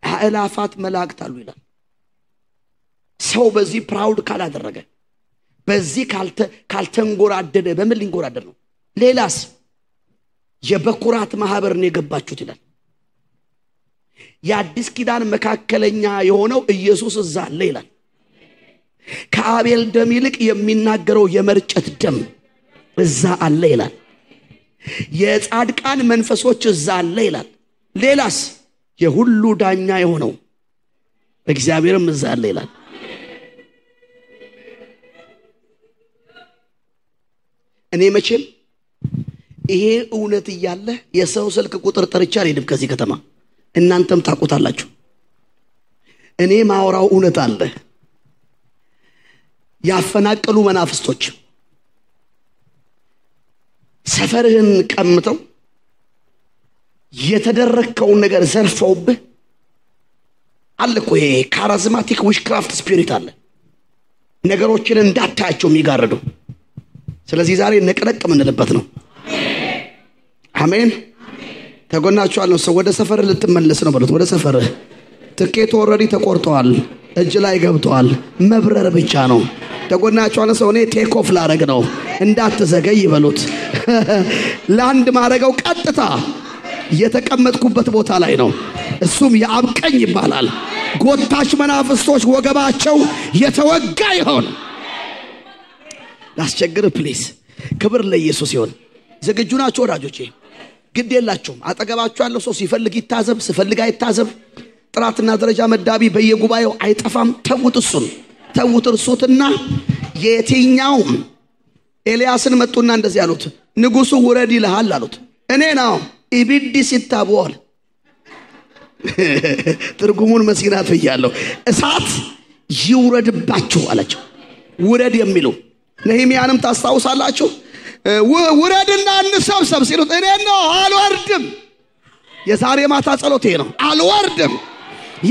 አላፋት መላእክት አሉ ይላል ሰው በዚህ ፕራውድ ካላደረገ በዚህ ካልተንጎራደደ በምን ሊንጎራደድ ነው ሌላስ የበኩራት ማህበር ነው የገባችሁት ይላል የአዲስ ኪዳን መካከለኛ የሆነው ኢየሱስ እዛ አለ ይላል ከአቤል ደም ይልቅ የሚናገረው የመርጨት ደም እዛ አለ ይላል የጻድቃን መንፈሶች እዛ አለ ይላል ሌላስ የሁሉ ዳኛ የሆነው እግዚአብሔርም እዛ አለ ይላል እኔ መቼም ይሄ እውነት ይያለ የሰው ስልክ ቁጥር ጠርቻ አልሄድም ከዚህ ከተማ እናንተም ታውቁታላችሁ እኔ ማወራው እውነት አለ ያፈናቀሉ መናፍስቶች ሰፈርህን ቀምተው የተደረከውን ነገር ዘርፈውብህ አለኮ ይሄ ካሪዝማቲክ ዊሽክራፍት ስፒሪት አለ ነገሮችን እንዳታያቸው የሚጋርዱ ስለዚህ ዛሬ ነቅነቅ ምንልበት ነው አሜን ተጎናችሁ አለው ሰው ወደ ሰፈር ልትመለስ ነው በሉት ወደ ሰፈር ትኬት ኦሬዲ ተቆርጧል እጅ ላይ ገብቷል መብረር ብቻ ነው ተጎናችሁ አለ ሰው እኔ ቴክ ኦፍ ላረግ ነው እንዳትዘገይ ይበሉት ላንድ ማረጋው ቀጥታ የተቀመጥኩበት ቦታ ላይ ነው እሱም ያብቀኝ ይባላል ጎታች መናፍስቶች ወገባቸው የተወጋ ይሆን ላስቸግር ፕሊዝ ክብር ለኢየሱስ ይሁን ዝግጁ ናችሁ ወዳጆቼ ግድ የላችሁም አጠገባችሁ ያለው ሰው ሲፈልግ ይታዘብ ሲፈልግ አይታዘብ ጥራትና ደረጃ መዳቢ በየጉባኤው አይጠፋም ተውት እርሱትና የትኛው ኤልያስን መጡና እንደዚህ ያሉት ንጉሱ ውረድ ይልሃል አሉት እኔ ነው ኢቢዲ ሲታቦል ትርጉሙን መስጊናት ይያለው እሳት ይውረድባችሁ አላቸው ውረድ የሚሉ ነህምያንም ታስታውሳላችሁ ውረድና እንሰብሰብ ሲሉት እኔ ነው አልወርድም የዛሬ ማታ ጸሎቴ ነው አልወርድም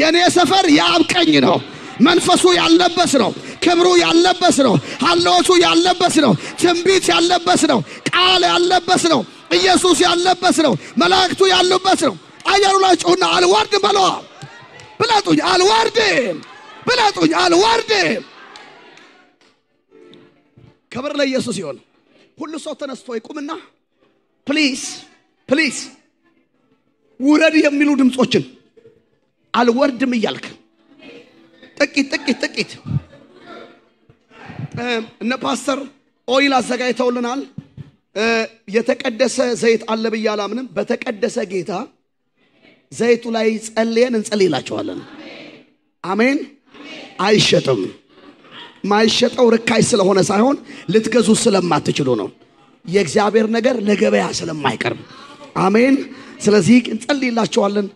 የኔ ሰፈር ያብቀኝ ነው መንፈሱ ያለበስ ነው ክብሩ ያለበስ ነው ሐልዎቱ ያለበስ ነው ትንቢት ያለበስ ነው ቃል ያለበስ ነው ኢየሱስ ያለበስ ነው መላእክቱ ያለበስ ነው አያሩላችሁና አልወርድም በለው ብላጡኝ አልወርድም ክብር ለኢየሱስ ይሁን ሁሉ ሰው ተነስቶ ይቁምና ፕሊዝ ውረድ የሚሉ ድምጾችን አልወርድም ይያልክ ጥቂት እነ ፓስተር ኦይል አዘጋጅተውልናል የተቀደሰ ዘይት አለ በያላምንም በተቀደሰ ጌታ ዘይቱ ላይ ጸልየን እንጸልይላችኋለን አሜን አይሸጥም ማይሸጠው ርካይ ስለሆነ ሳይሆን ልትገዙ ስለማትችሉ ነው የእግዚአብሔር ነገር ለገበያ ስለማይቀርብ አሜን ስለዚህ እንጸልይላችኋለን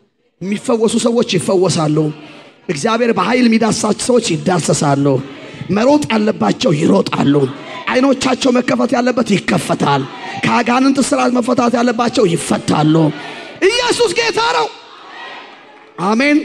የሚፈወሱ ሰዎች ይፈወሳሉ እግዚአብሔር በኃይል የሚዳሳቸው ሰዎች ይዳሰሳሉ መሮጥ ያለባቸው ይሮጣሉ አይኖቻቸው መከፈት ያለበት ይከፈታል ከአጋንንት ስራት መፈታት ያለባቸው ይፈታሉ ኢየሱስ ጌታ ነው አሜን